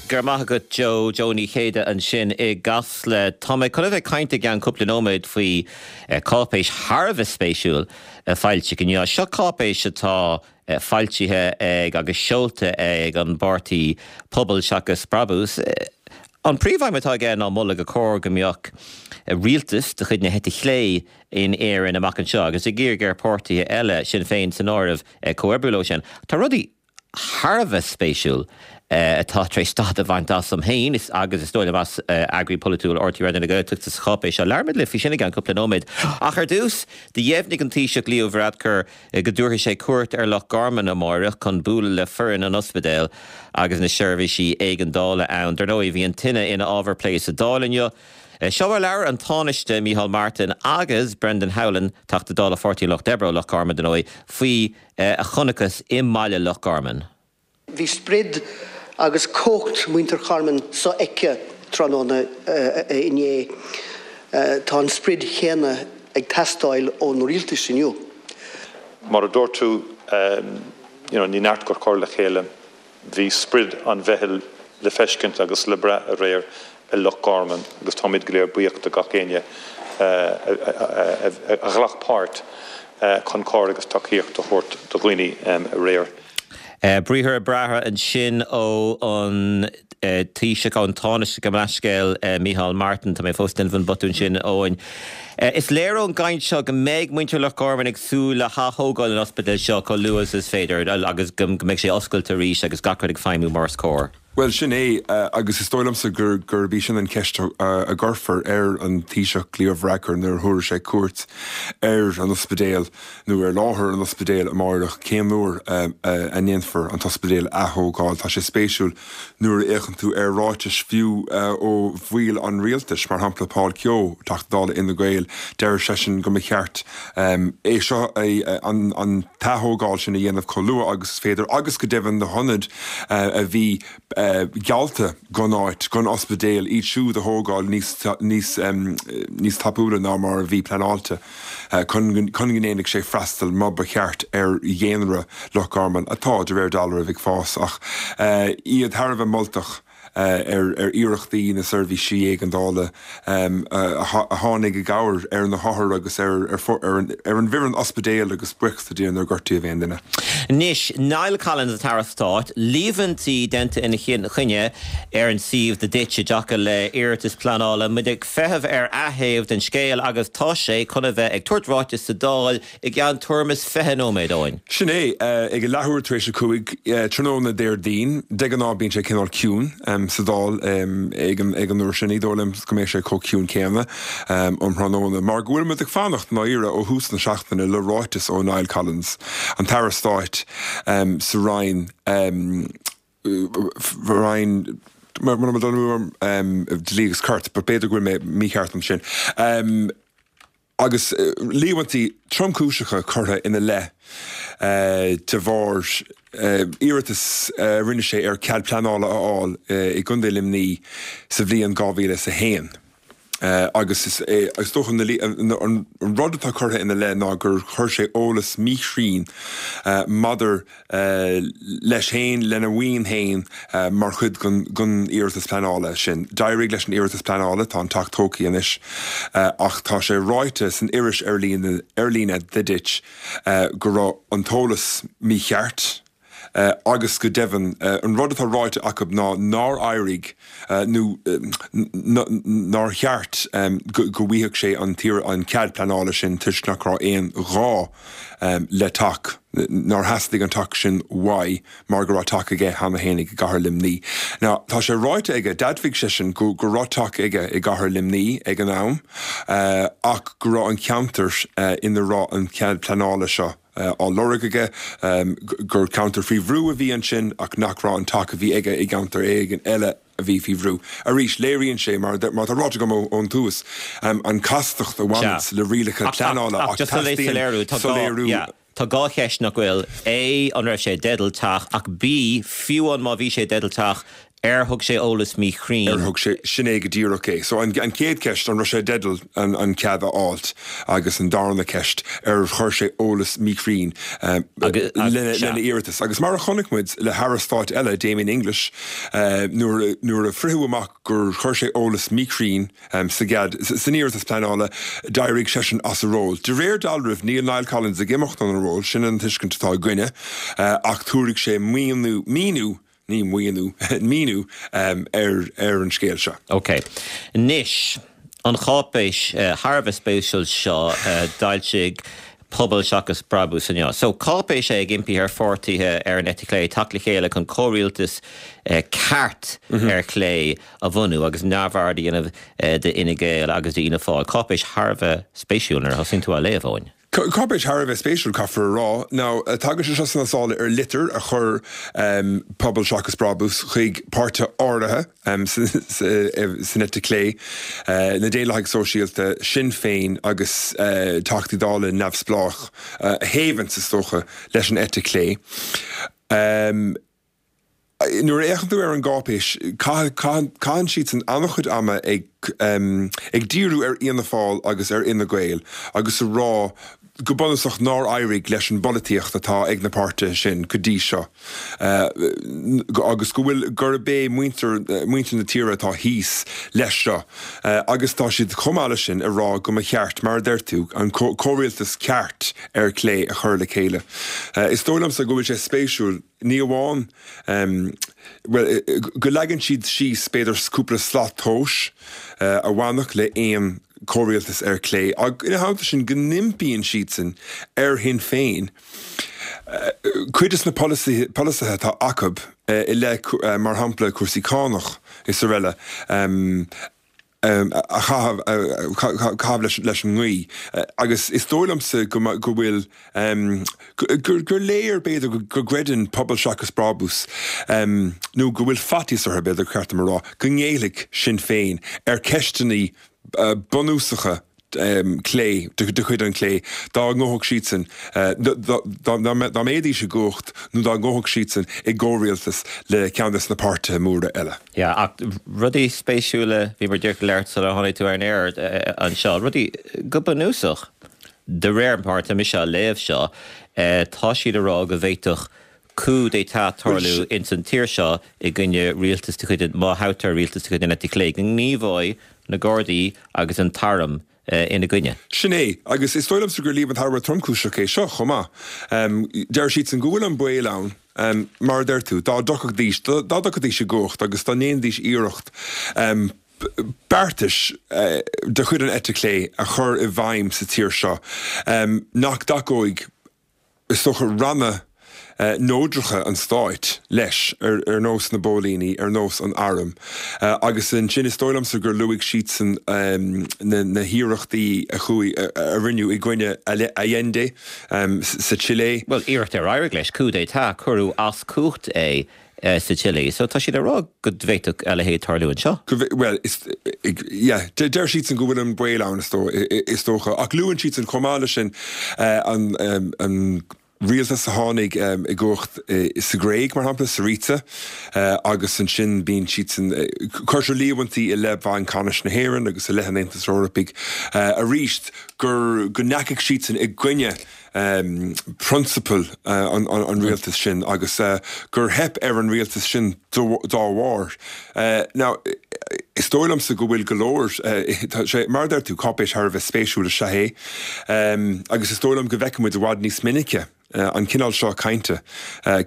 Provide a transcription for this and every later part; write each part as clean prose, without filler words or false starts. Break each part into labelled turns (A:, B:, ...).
A: Go raibh maith agat Joe, Joe Ní Chéide ansin i gCasla. Tá mé chun a bheith ag caint i gceann cúpla nóiméad faoi cáipéis thar a bheith spéisiúil a foilsíodh inniu. Seo cáipéis atá foilsithe ag agus seolta ag an bpáirtí Pobal Seachas Brabús. An príomhaidhm atá aige ná moladh gur chóir go mbeadh rialtas de chuid na heite chlé in Éirinn amach anseo agus ag iarraidh ar pháirtithe eile, Sinn Féin san áireamh, comhoibriú leo sin. Tá rudaí thar a bheith spéisiúil atá tar éis stad a bhaint asam féin agus is dóigh liom as eagraí polaitiúil RTÉ Raidió na Gaeltachta sa cháipéis seo. Labhróimid libh faoi sin i gceann cúpla nóiméad. Ach ar dtús, do dheimhnigh an Taoiseach Leo Varadkar go dtabharfaidh sé cuairt ar Loch Garman amáireach chun bualadh le foireann an ospidéil agus na seirbhísí éigeandála ann. Dar ndóigh, bhí an tine ina ábhar plé sa Dáil inniu. Seo mar a labhair an Tánaiste Micheál Martin agus Brendan Howlin, Teachta Dála Pháirtí an Lucht Oibre ó Loch Garman, dar ndóigh, faoi a chonacthas i mbaile Loch Garman.
B: Bhí sprid agus cumhacht muintir Charman sofheicthe tráthnóna inné. Tá an sprid chéanna ag teastáil ón rialtas inniu.
C: Mar a dúirt tú, you know, ní neart gur cur le chéile. Bhí sprid an mheitheal le feiscint agus le brath aréir i Loch Garman agus táimid go léir buíoch de gach éinne a ghlac páirt chun cabhair agus tacaíocht a thabhairt do dhaoine aréir.
A: Briathra breátha ansin ó an Taoiseach, ón Tánaiste, gabh mo leithscéal, Micheál Martin. Tá mé fós ag déanamh an botún sin, Eoin. Is léir ón gcaint seo go mbeidh muintir Loch Garman ag súil le hath-thógáil an ospidéil seo chomh luath is is féidir agus go mbeidh sé oscailte arís agus gach rud ag feidhmiú mar is cóir.
D: Bhuel, sin é, agus is dóigh liomsa gurb í sin an cheist a gcuirfear ar an Taoiseach Leo Varadkar nuair a thabharfaidh sé cuairt ar an ospidéal nó ar láthair an ospidéil amáireach, cén uair a ndéanfar an t-ospidéal a ath-thógáil. Tá sé spéisiúil nuair a fhéachann tú ar ráitis fiú ó bhaill an rialtais, mar shampla Paul Kehoe, Teachta Dála Fhine Gael, deir seisean go mba cheart é seo, an t-ath-thógáil sin a dhéanamh chomh luath agus is féidir agus go deimhin na hionaid a bhí geallta gon áit, gon ospidéal, iad siúd a thógáil níos, níos, níos tapúla ná mar a bhí pleanáilte. chun go ndéanfadh sé freastal mar ba cheart ar dhaonra Loch Garman, atá, de réir dealraimh, ag fás, ach iad thar a bheith moltach ar iarrachtaí na seirbhísí éigeandála a tháinig i gcabhair ar na hothair agus ar an bhfoireann ospidéil agus buíochas le Dia nár gortaíodh aon duine.
A: Anois, Niall Collins, an tAire Stáit, líomhaintí déanta ina choinne ar an suíomh The Ditch i dtaca le iarratas pleanála. Muid ag feitheamh ar a thaobh den scéal agus tá sé chun a bheith ag tabhairt ráiteas sa Dáil i gceann tuairim is 20 nóiméad, Eoin.
D: Sin é, ag a leathuair tar éis a 5, tráthnóna Déardaoin. De ghnáth bíonn sé cineál ciúin sa Dáil ag an uair sin. Ní dóigh liom go mbeidh sé chomh ciúin céanna um thráthnóna mar go bhfuil muid ag fanacht, i ndáiríre, ó thús na seachtaine le ráiteas ó Niall Collins, an tAire Stáit sa Roinn. Roinn, mura bhfuil dul amú orm, Dlí agus Cirt, but b'fhéidir go bhfuil mé mícheart ansin. Agus líomhaintí tromchúiseacha curtha ina leith de bharr iarratas a rinne sé ar cead pleanála a fháil i gContae Luimnigh sa bhliain 2001. Agus is é is dócha an rud atá curtha ina leith ná gur chuir sé eolas míchruinn maidir leis féin, lena mhaoin féin mar chuid den iarratas pleanála sin. D'éirigh leis an iarratas pleanála, tá an teach tógtha anois, ach tá sé ráite san iris ar líne The Ditch go raibh an t-eolas mícheart. Agus go deimhin, an rud atá ráite acu ná nár éirigh nó nár cheart go bhfaigheadh sé an cead pleanála sin toisc nach raibh aon ghá le teach, nár theastaigh an teach sin uaidh mar go raibh teach aige cheana féin i gcathair Luimnigh. Now, tá sé ráite aige, d'admhaigh seisean go raibh teach aige i gcathair Luimnigh ag an am ach go raibh an ceantar ina raibh an cead pleanála seo, á lorg aige, gur ceantar faoi bhrú a bhí ansin ach nach raibh an teach a bhí aige i gceantar éigin eile a bhí faoi bhrú. Arís, léiríonn sé, mar atá ráite agam ón tús, an chastacht a bhaineanns le rialacha pleanála
A: ach teastaíonn soiléiriú. Tá dhá cheist nach bhfuil, A, an raibh sé i dteideal teach ach B, fiú amháin má bhí sé i dteideal teach. Ar thug sé eolas míchruinn?
D: Ar thug sé, sin é go díreach é. So an chéad cheist, an raibh sé i dteideal an cead a fháilt? Agus an darna ceist, ar chuir sé eolas míchruinn lena iarratas? Agus mar a chonaic muid le hAire Stáit eile, Damien English, nuair a fritheadh amach gur chuir sé eolas míchruinn sa gcead, san iarratas pleanála, d'éirigh seisean as a ról. De réir dealraimh, níl Niall Collins ag imeacht óna ról, sin an tuiscint atá againne, ach tabharfaidh sé míniú ní maoiniú, míniú ar an scéal seo.
A: Ok. Anois, an cháipéis thar a bheith spéisiúil seo a d'fhoilsigh Pobal Seachas Brabús inniu. So, cáipéis é ag impí ar pháirtithe ar an eite chlé teacht le chéile chun comhrialtas ceart ar chlé a bhunú agus neamhaird a dhéanamh d'Fhine Gael agus d'Fhianna Fáil. Cáipéis thar a bheith spéisiúil nuair a thosaíonn tú á léamh, Eoin.
D: Cáipéis thar a bheith spéisiúil, caithfear a rá. Now, tagann sé seo sna sála ar litir a chuir Pobal Seachas Brabús chuig páirtithe áirithe san eite chlé, na Daonlathaigh Sóisialta, Sinn Féin agus Teachtaí Dála neamhspleách a thaobhanns, is dócha, leis an eite chlé. Nuair a fhéachann tú ar an gcáipéis, caitheann siadsan an-chuid ama ag ag díriú ar Fhianna Fáil agus ar Fhine Gael agus a rá go bunúsach nár éirigh leis an bpolaitíocht atá ag na páirtithe sin go dtí seo agus go bhfuil gurb é muintir muintir na tíre atá thíos leis seo agus tá siad chomh maith leis sin ag rá go mba cheart, mar a deir tú, an comhrialtas ceart ar chlé a chur le chéile. Is dóigh liomsa go bhfuil sé spéisiúil. Ní amháin, bhuel, go leagann siad síos, b'fhéidir, cúpla slat tomhais a bhainfeadh le aon chomhrialtas ar chlé, ach ina theannta sin go n-impíonn siadsan ar Shinn Féin cuid de na polasaithe atá acu i leith, mar shampla, cúrsaí cánach is araile, a chaitheamh leis an ngaoth agus is dóigh liomsa go bhfuil, gur léir, b'fhéidir, go gcreideann Pobal Seachas Brabús, nó go bhfuil faitíos orthu, b'fhéidir, gur cheart dom a rá, go ngéillfidh Sinn Féin ar cheisteanna bunúsacha clé, de chuid an chlé, dá ngabhfadh siadsan, dá mbeidís i gcumhacht nó dá ngabhfadh siadsan i gcomhrialtas le ceann de na páirtithe móra eile.
A: Yeah, ach rudaí spéisiúla, bhíomar díreach ag labhairt sular tháinig tú ar an aer anseo, rudaí go bunúsach, de réir mar atá mise á léamh seo, tá siad ag rá go bhféadfadh coup d'état tarlú ins an tír seo i gcoinne rialtas de chuid, má thoghtar rialtas de chuid an eite chlé, go ngníomhóidh na Gardaí agus an t-arm ina gcoinne.
D: Sin é, agus is dóigh liomsa gur líomhain thar a bheith tromchúiseach é seo chomh maith. Deir siadsan go bhfuil an baol ann, mar a deir tú, dá dtiocfaidís, dá dtiocfaidís i gcumhacht agus dá ndéanfaidís iarracht beartais de chuid an eite chlé a chur i bhfeidhm sa tír seo, nach dtacóidh is dócha, ranna neodracha an stáit leis, ar nós na bpóilíní, ar nós an airm. Agus ansin is dóigh liomsa gur luaigh siadsan na hiarrachtaí a chuaigh, a rinneadh i gcoinne Allende sa tSile.
A: Bhuel, iarracht ar éirigh leis, coup d'état, cuireadh as cumhacht é. sa tSile. So tá siad ag rá go bhféadfadh a leithéid tarlú anseo.
D: Go bhfé-, bhuel, is, yeah, deir siadsan go bhfuil an baol ann, is dóigh, is dócha. Ach luann siadsan chomh maith leis sin an, an rialtas a tháinig i gcumhacht sa Ghréig, mar shampla, Syriza, agus ansin bíonn siadsan, cuirtear líomhaintí i leith Bhanc Ceannais na hÉireann agus i leith an Aontais Eorpaigh arís gur, go ndeachaigh siadsan i gcoinne prionsabail an rialtais sin agus gur theip ar an rialtas sin dá bharr. Now, is dóigh liomsa go bhfuil go leor, tá sé, mar a deir tú, cáipéis thar a bheith spéisiúil is ea é agus is dóigh liom go bhfeicfidh muid i bhfad níos minice an cineál seo cainte.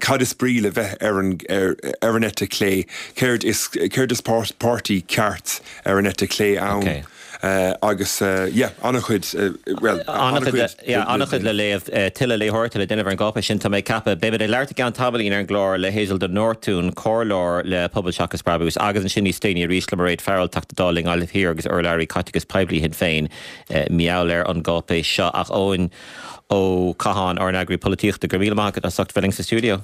D: Cad is brí le bheith ar an ar an eite chlé? Céard is céard is páirtí ceart ar an eite chlé ann? Agus yeah, an-chuid, bhuel,
A: an-chuid. Yeah, an-chuid le léamh, tuilleadh léitheoireachta le déanamh ar an gcáipéis sin, tá mé ag ceapadh. Beimid ag labhairt i gceann tamaillín ar an gclár le Hazel de Nortún, comhairleoir le Pobal Seachas Brabús, agus ansin níos déanaí arís le Mairéad Farrell, Teachta Dála i nGaillimh Thiar agus urlabhraí caiteachais poiblí Shinn Féin, mar gheall ar an gcáipéis seo. Ach Eoin Ó Catháin, ár n-eagraí polaitíochta, go raibh míle maith agat as ucht bheith linn sa stiúideo.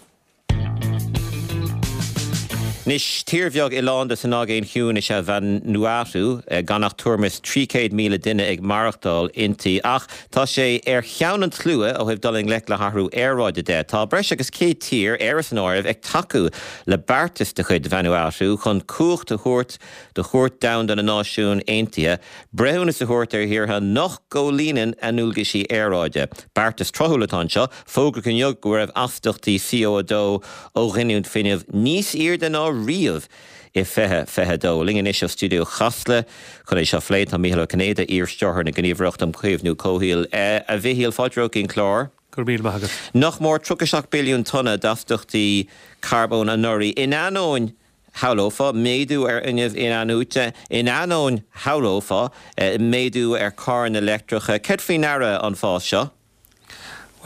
A: Anois, tír bheag oileánda san Aigéan Chiúin is ea Vanuatu, gan ach tuairim is 300,000 duine ag maireachtáil inti. Ach tá sé ar cheann an tslua ó thaobh dul i ngleic le hathrú aeráide de. Tá breis agus 100 tír, Éire san áireamh, ag tacú le beartas de chuid Vanuatu chun cumhacht a thabhairt do Chúirt Domhanda na Náisiún Aontaithe breithiúnas a thabhairt ar thíortha nach gcomhlíonann a ndualgaisí aeráide. Beartas tráthúil atá anseo. Fógraíodh inniu go raibh astaíochtaí CO2 ó ghiniúint fuinnimh níos airde ná riamh i 2022. Linn anois ó stiúideo Chasla chun é seo a phlé tá Mícheál Ó Cinnéide, iar-stiúrthóir na Gníomhaireachta um Chaomhnú Comhshaoil. A Mhichíl, fáilte romhat go dtí an clár.
E: Go raibh míle maith agat.
A: Nach mór 37 billiún tonna d'astaíochtaí carbóin anuraidh, in ainneoin, shamhlófá, méadú ar fhuinneamh in-athnuaite, in ainneoin, shamhlófá, méadú ar charranna leictreacha. Céard faoi ndeara an fás seo?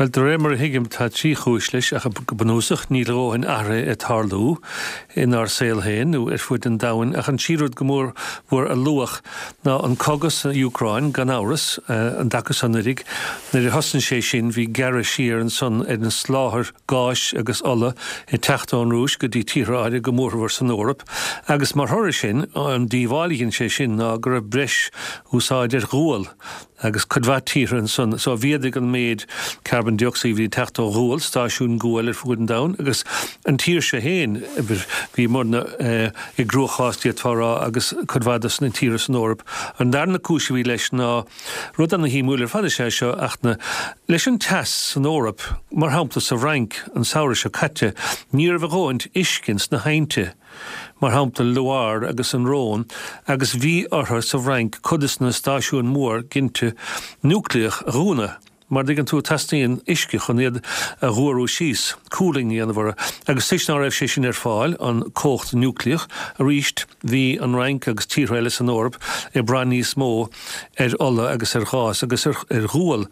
E: Bhuel, de réir mar a thuigim, tá trí chúis leis, ach go bunúsach, níl a dhóthain athraithe ag tarlú inár saol féin nó ar fuaid an domhain. Ach an tríú rud go mór mhór a luadh ná an cogadh san Úcráin, gan amhras, an dtaca san uilig. Nuair a thosnaigh sé sin, bhí gearradh siar ansan ar an soláthar gáis agus ola ag teacht ón Rúis go dtí tíortha áirithe, go mórmhór san Eoraip, agus mar thoradh sin, an díobháil a dhein sé sin ná go raibh breis úsáid ar ghual. agus cuid mhaith tíortha ansan. So mhéadaigh an méid carbon dioxide a bhí ag teacht ó ghual, stáisiúin guail ar fuaid an domhain, agus an tír seo fhéin, bhíomarna i gcruachás d'fhéadfá a rá agus cuid mhaith dos na tíortha san Eoraip. An darna cúis a bhí leis ná, rud ana-shuimiúil ar fad is ea seo, ach na, leis an teas san Eoraip, mar shampla sa Fhrainc an samhradh seo caite, ní raibh a dhóthaint uisce ins na haibhnte. mar shampla Loire agus an Rhône, agus bhí orthu sa bhFrainc cuid des na stáisiúin mhór ginte núicléach a dhúnadh, mar dtuigeann tú, teastaíonn uisce chun iad a dh'fhuarú síos, cooling a dhéanamh orthu, agus toisc ná raibh sé sin ar fáil, an cumhacht núicléach, arís bhí an Fhrainc agus tíortha eile san Eoraip ag brath níos mó ar ola agus ar ghás agus ar ghual.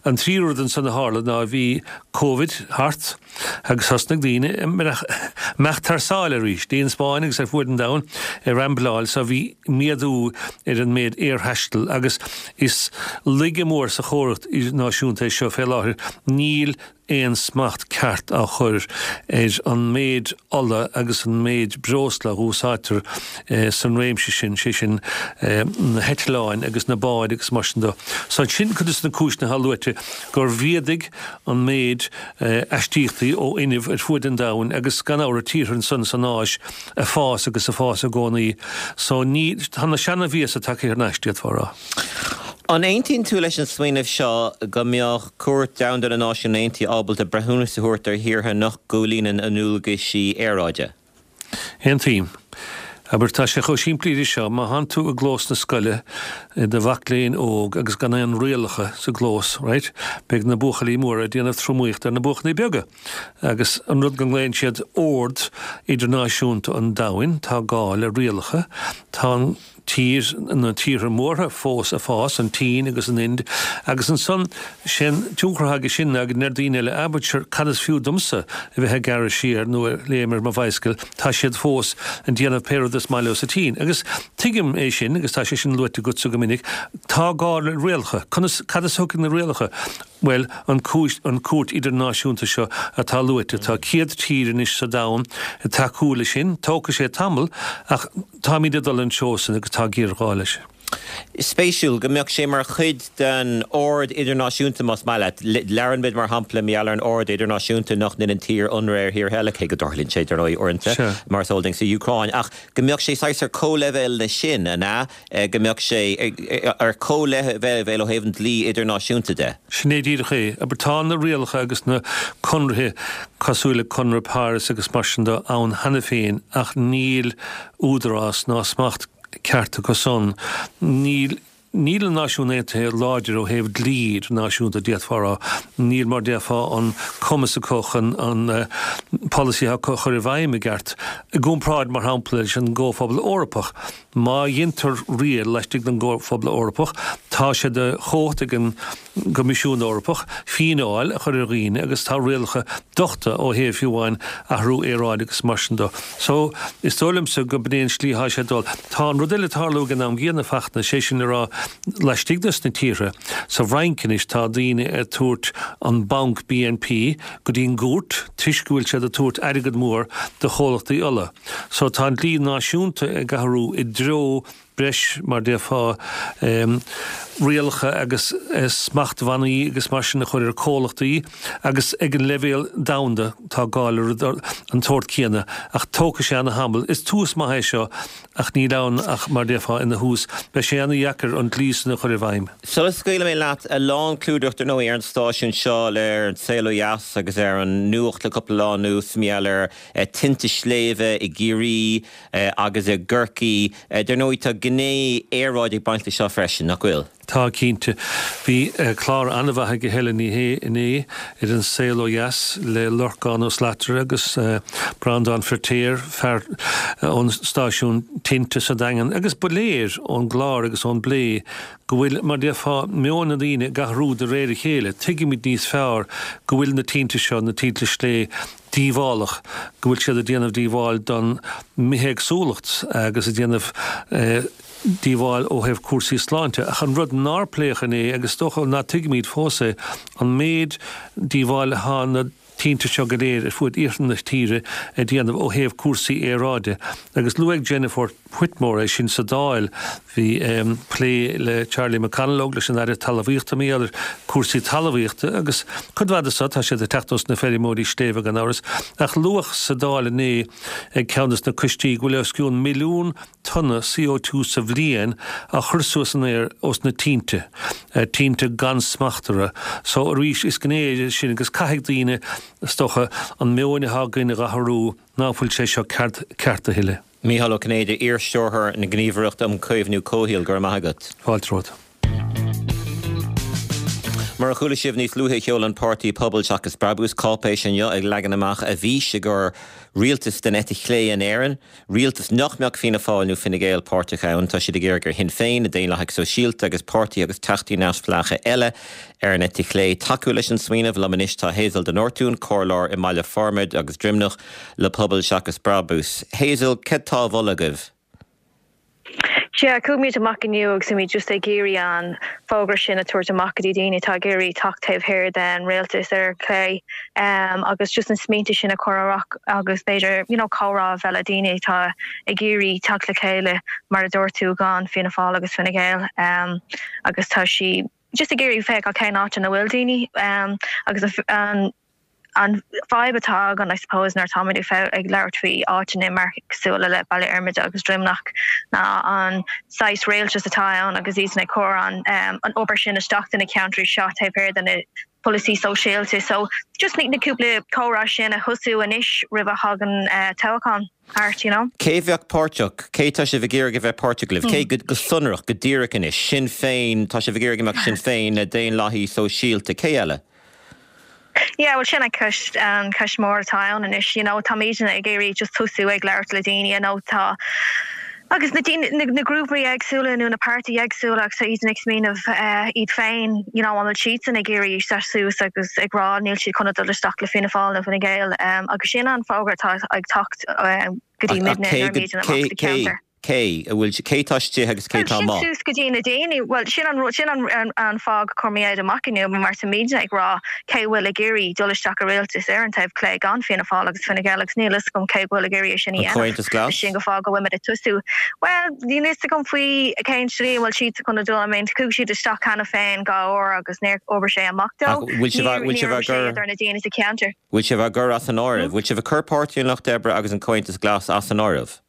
E: An tríú rud ansan a tharla ná bhí Covid thart, Agus thosnaigh daoine imeacht thar sáile arís, dtí an Spáinn agus ar fuaid an domhain ag rambláil so bhí méadú ar an méid aerthaistil agus is laige mór sa chóras idirnáisiúnta é seo fé láthair, níl aon smacht ceart á chur ar an méid ola agus an méid breosla a úsáidtear san réimse sin, sé sin na heitleáin agus na báid agus mar sin de. So sin cuid de na cúiseanna atá luaite gur mhéadaigh an méid aistíochtaí ó fhuinneamh ar fuaid an domhain agus gan amhras tíortha ansan san Áis ag fás agus ag fás i gcónaí so ní, tá na seana-mhiasa tagtha thar n-ais, d'fhéadfá a rá.
A: An aontaíonn tú leis an smaoineamh seo go mbeadh Cúirt Domhanda na Náisiún Aontaithe ábalta breithiúnas a thabhairt ar thíortha nach gcomhlíonann a ndualgaisí aeráide?
E: Aontaím. Abair, tá sé chomh simplí leis seo, má thánn tú i gclós na scoile i do mhac léinn óg agus gan aon rialacha sa gclós, right, beidh na buachaillí móra ag déanamh tromaíocht ar na buachaillí beaga. Agus an rud go nglaonn siad ord idirnáisiúnta an domhain, tá gá le rialacha, tá an. tír, na tíortha mórtha fós ag fás, an tSín agus an Ind, agus ansan, sé'n tionchar atá aige sin ná go ndeir daoine eile, ah but sure, cad is fiú domsa a bheith ag gearradh siar nó ag léim ar mo bhicycle, tá siad fós ag déanamh pé rud is maith leo sa tSín. Agus tuigim é sin, agus tá sé sin luaite agatsa go minic, tá gá le rialacha. Conas, cad as a thiocfaidh na rialacha? Bhuel, an cúis, an cúirt idirnáisiúnta seo atá luaite, tá 100 tír anois sa domhan ag tacú leis sin, tógfaidh sé tamall ach táimid ag dul an treo sin agus tá géarghá leis.
A: Spéisiúil go mbeadh sé mar chuid den ord idirnáisiúnta, más maith leat. Labhrann muid, mar shampla, mar gheall ar an ord idirnáisiúnta nach ndéanann tír ionradh ar thír eile, cé go dtarlaíonn sé, dar ndóigh, uaireanta, mar is eol duinn, sa Úcráin, ach go mbeadh sé saghas ar comhleibhéal leis sin, an ea? Go mbeadh sé ar comhleibhéal ó thaobh an dlí idirnáisiúnta de.
E: Sin é díreach é. Abair, tá na rialacha agus na conarthaí cosúil le Conradh Páras agus mar sin de ann cheana féin ach níl údarás ná smacht ceart acu san. Níl níl na Náisiúin Aontaithe láidir ó thaobh dlí idirnáisiúnta, d'fhéadfá a rá. Níl, mar déarfá, an cumas acu chun an polasaithe acu a chur i bhfeidhm i gceart. I gcomparáid, mar shampla, leis an gComhphobal Eorpach. Má dheintear riail laistigh den gComhphobal Eorpach, tá sé de chumhacht ag an gCoimisiún Eorpach fíneáil a chur ar dhaoine agus tá rialacha dochta ó thaobh fiú amháin athrú aeráide agus mar sin de. So, is dóigh liomsa go b'in é an slí atá sé ag dul. Tá an rud eile ag tarlú ag an am gcéanna, Fachtna, sé sin le rá. Laistigh de sna tíortha, sa bhFrainc anois tá daoine ag tabhairt an banc BNP go dtí an gcúirt toisc go bhfuil siad ag tabhairt airgead mór do chomhlachtaí ola. So tá an dlí náisiúnta ag athrú i dtreo breis, mar déarfá, rialacha agus smachtbhannaí agus mar sin a chur ar comhlachtaí agus ag an leibhéal domhanda tá gá le rud an tsórt céanna ach tógfaidh sé ana-thamall. Is tús maith é seo ach níl ann ach, mar déarfá, ina thús. Beidh sé ana-dheacair an dlí san a chur i bhfeidhm.
A: Sula scaoilfidh mé leat, a lán clúdaireacht ar ndóigh ar an stáisiún seo le ar an saol ó dheas agus ar an nuacht le cúpla lá anuas, mar gheall ar tinte sléibhe i gCiarraí agus i gCorcaigh. Dar ndóigh tá gné aeráide ag baint leis seo freisin, nach bhfuil?
E: Tá, cinnte. Bhí clár an-mhaith ag Helen Ní Shé inné ar An Saol Ó Dheas le Lorcán Ó Slatara agus Breandán Feirtéar, fear ón stáisiún tinte sa Daingean, agus ba léir ón gclár agus ón bplé go bhfuil, mar déarfá, meon na ndaoine ag athrú de réir a chéile. Tuigimid níos fearr go bhfuil na tinte seo, na tinte sléibhe, díobhálach, go bhfuil siad ag déanamh díobháil don mbithéagsúlacht agus ag déanamh díobháil ó thaobh cúrsaí sláinte. Ach an rud nár pléadh inné, agus is dócha ná tuigimid fós é, an méid díobháil atá na tinte seo go léir ar fuaid iarthar na tíre ag déanamh ó thaobh cúrsaí aeráide. Agus luaigh Jennifer Whitmore é sin sa Dáil. Bhí plé le Charlie McConalogue, leis an Aire Talmhaíochta, mar gheall ar cúrsaí talmhaíochta agus cuid mhaith de so, tá siad ag teacht ós na feirmeoirí sléibhe gan amhras. Ach luadh sa Dáil inné ag ceann des na coistí go bhfuil os cionn milliún tonna CO2 sa bhliain á chur suas san aer ós na tinte, tinte gan smacht orthu. So arís is gné é sin agus caithfidh daoine, is dócha, an meon atá againn a dh'athrú ná fuil sé seo ceart a thuilleadh.
A: Mícheál Ó Cinnéide, iar-Stiúrthóir na Gníomhaireachta um Chaomhnú Comhshaoil, go raibh maith agat.
E: Fáilte romhat.
A: Mar a chuala sibh níos luaithe sheol an páirtí Pobal Seachas Brabús cáipéis inniu ag leagan amach a bhfís i gcomhair rialtas den eite chlé in Éirinn, rialtas nach mbeadh Fianna Fáil nó Fine Gael páirteach ann. Tá siad ag iarraidh ar Shinn Féin, na Daonlathaigh Sóisialta agus páirtithe agus teachtaí neamhspleácha eile ar an eite chlé tacú leis an smaoineamh. Liom anois tá Hazel de Nortúin, comhairleoir i mBaile Formaid agus Droimneach, le Pobal Seachas Brabús. Hazel, céard tá á mholadh agaibh?
F: Sea, chuaigh muid amach inniu agus bhí muid just ag iarraidh an fógra sin a tabhairt amach go dtí daoine atá ag iarraidh teacht taobh thiar den rialtas ar chlé agus just na smaointe sin a chur amach agus b'fhéidir you know comhrá a bheith le daoine atá ag iarraidh teacht le chéile mar a dúirt tú gan Fianna Fáil agus Fine Gael agus tá sí just ag iarraidh féacháil cén áit ina bhfuil daoine agus an An fadhb atá againn, I suppose, nuair atáimid ag labhairt faoi áiteanna mar cosúil le Baile Fhormaide agus Droimneach ná an saghas rialtas atá ann agus iadsan ag cur an an obair sin isteach do na ceantraí seo taobh thiar de na polasaí sóisialta. So just na cúpla comhrá sin a thosú anois roimh a thagann toghchán thart, you know.
A: Cé bheadh páirteach? Cé tá sibh ag iarraidh a bheith páirteach libh? Cé go sonrach, go díreach anois? Sinn Féin, tá sibh ag iarraidh go mbeadh Sinn Féin, na Daonlathaigh Sóisialta, cé eile?
F: Yeah, bhuel sin an ceist, an ceist mór atá ann anois, you know, táimidne ag iarraidh just tosú ag labhairt le daoine, you know, tá, agus na daoine, na, na grúpaí éagsúla nó na páirtí éagsúla agus tá iadsan ag smaoineamh eh, iad féin, you know, an bhfuil siadsan ag iarraidh seasamh suas agus ag rá níl siad chun a dul isteach le Fianna Fáil nó Fine Gael, um, agus sin an fógra atá ag teacht um, go dtí
A: Ach, ach
F: muidne
A: cé
F: nuair a
A: go,
F: bhímid amach
A: cé,
F: sa
A: cé,
F: cheantar.
A: Cé a bhfuil, cé tá istigh agus cé
F: Bhuel,
A: tá
F: sin
A: amuigh?
F: suas go dtí na daoine. Bhuel, sin an rud, sin an an fáth gur chuir muid amach inniu, mar táimidne ag rá cé bhfuil ag iarraidh dul isteach i rialtas ar an taobh clé gan Fianna Fáil agus Fine Gael agus níl fhios agam cé go bhfuil ag iarraidh é sin a
A: An
F: dhéanamh.
A: Comhaontas Glas?
F: Sin an fáth go bhfuil muid ag tosú. Bhuel, níl fhios agam faoi cén slí a bhfuil siad chun a dul. I mean, chuaigh siad isteach cheana féin dhá uair agus níor obair sé amach
A: Ach
F: dó.
A: bhfuil sibh,
F: Níor,
A: bhfuil
F: níor
A: sibh á
F: obair sé
A: gcur,
F: idir na daoine sa cheantar.
A: bhfuil sibh á gcur as an áireamh? Bhfuil sibh ag cur Páirtí an Lucht Oibre agus an Comhaontas Glas as an áireamh?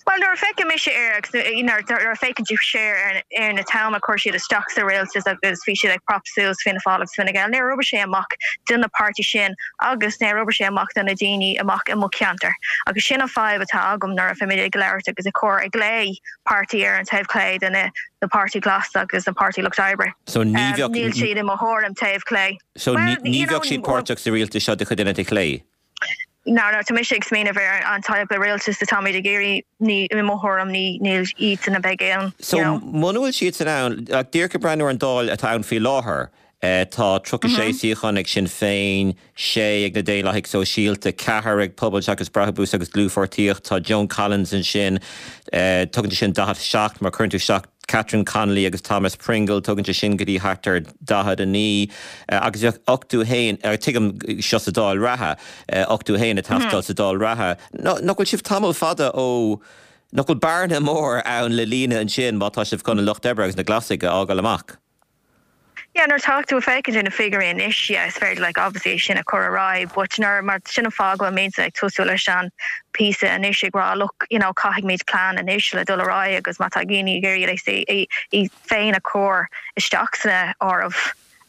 F: Bhuel, nuair a feiceann mise air agus nuair a féachann tú siar ar na t-am a chuir siad isteach sa rialtas agus bhí siad ag prop suas Fianna Fáil agus Fine Gael, níor obair sé amach do na páirtí sin agus níor obair sé amach do na daoine amach i mo cheantar. Agus sin an fadhb atá agam nuair a bhímid ag labhairt agus ag cur ag glao páirtí ar an taobh clé de na na Páirtí Glas agus an Páirtí Lucht Oibre.
A: So ní bheadh.
F: Níl siad i mo thuairim taobh clé.
A: So ní bheadh siad páirteach sa rialtas seo de chuid an eite chlé?
F: No, no, tá mise ag smaoineamh ar an type of rialtas atáimid ag iarraidh, ní, i mo thuairim, ní, níl iadsan a bheidh ann,
A: So,
F: you know.
A: muna bhfuil siadsan ann, like, díreach ag breathnú ar an Dáil atá ann faoi láthair, tá 36 suíochán ag Sinn Féin, 6 ag na Daonlathaigh Sóisialta, 4 ag Pobal Seachas Brabús agus Dlúthpháirtíocht, tá Joan Collins ansin, tugann sé sin 47 má chuireann tú isteach. Catherine Connolly agus Thomas Pringle, tugann sé sin go dtí thart ar 49 agus bheadh 81, tuigim seo sa Dáil reatha, 81 ag teastáil sa Dáil reatha. Nach bhfuil sibh tamall fada ó, nach bhfuil bearna mór ann le líonadh ansin má tá sibh chun an Lucht Oibre agus na Glasaigh a fhágáil amach?
F: Yeah, nuair atá tú ag féachaint ar na figiúirí anois, yeah, is féidir like obviously é sin a chur ar aghaidh but nuair, mar sin an fáth go bhfuil mise ag tosú leis an píosa anois ag rá look, you know, caithfimid plean anois le dul ar aghaidh agus má tá daoine ag iarraidh iad féin a chur isteach san áireamh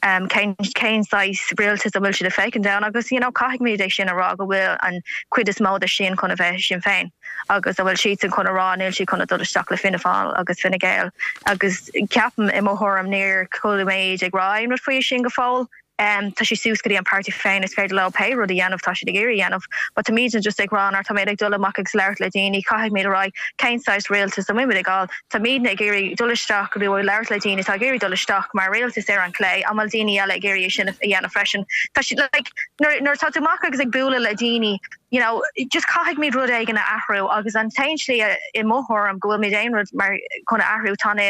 F: um, cén, cén saghas rialtas a bhfuil siad ag féachaint ann agus you know, caithfimid é sin a rá go bhfuil an cuid is mó de sin chun a bheith Sinn Féin. agus a bhfuil siadsan chun a rá níl siad chun a dul isteach le Fianna Fáil agus Fine Gael agus ceapaim i mo thuairim níor chuala muid ag rá aon rud faoi sin go fóill. Tá sé suas go dtí an páirtí féin is féidir leo pé rud a dhéanamh tá siad ag iarraidh a dhéanamh but táimidne just ag rá nuair táimid ag dul amach agus labhairt le daoine caithfimid a rá cén saghas rialtas a bhfuil muid ag fháil táimidne ag iarraidh dul isteach nó ag labhairt le daoine atá ag iarraidh dul isteach mar rialtas ar an chlé an bhfuil daoine eile ag iarraidh é sin a dhéanamh freisin tá siad like nuair nuair atá tú amach agus ag bualadh le daoine you know, just caithfimid rud éigin a athrú agus an t-aon slí i mo thuairim go bhfuilmid aon rud mar chun a athrú tá na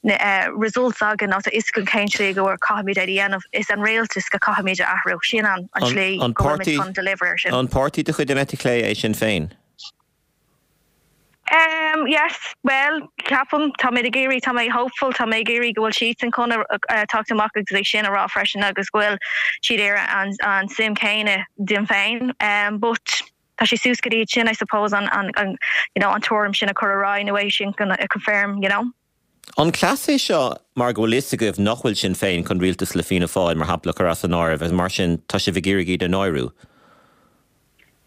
F: na eh, results againn nó tá fhios againn cén slí go bhfuil caithfimid é a dhéanamh is an rialtas go caithfimid a athrú sin an an slí go bhfuilmid chun deliver ar sin.
A: An páirtí de chuid an eite chlé é Sinn Féin?
F: Um, yes, well, ceapaim, tá mé ag iarraidh, tá mé hopeful, tá mé ag iarraidh go bhfuil siadsan chun teacht amach agus é sin a rá freisin agus go bhfuil siad ar an, an suim céanna dinn féin. Um, but tá sé suas go dtí sin, I suppose, an, an, an, you know, an tuairim sin a chur ar aghaidh nó é sin a confirm, you know.
A: An cleas é seo mar go bhfuil fhios agaibh nach bhfuil Sinn Féin chun rialtas le Fianna Fáil, mar shampla, a chur as an áireamh agus mar sin tá sibh ag iarraidh iad a náiriú?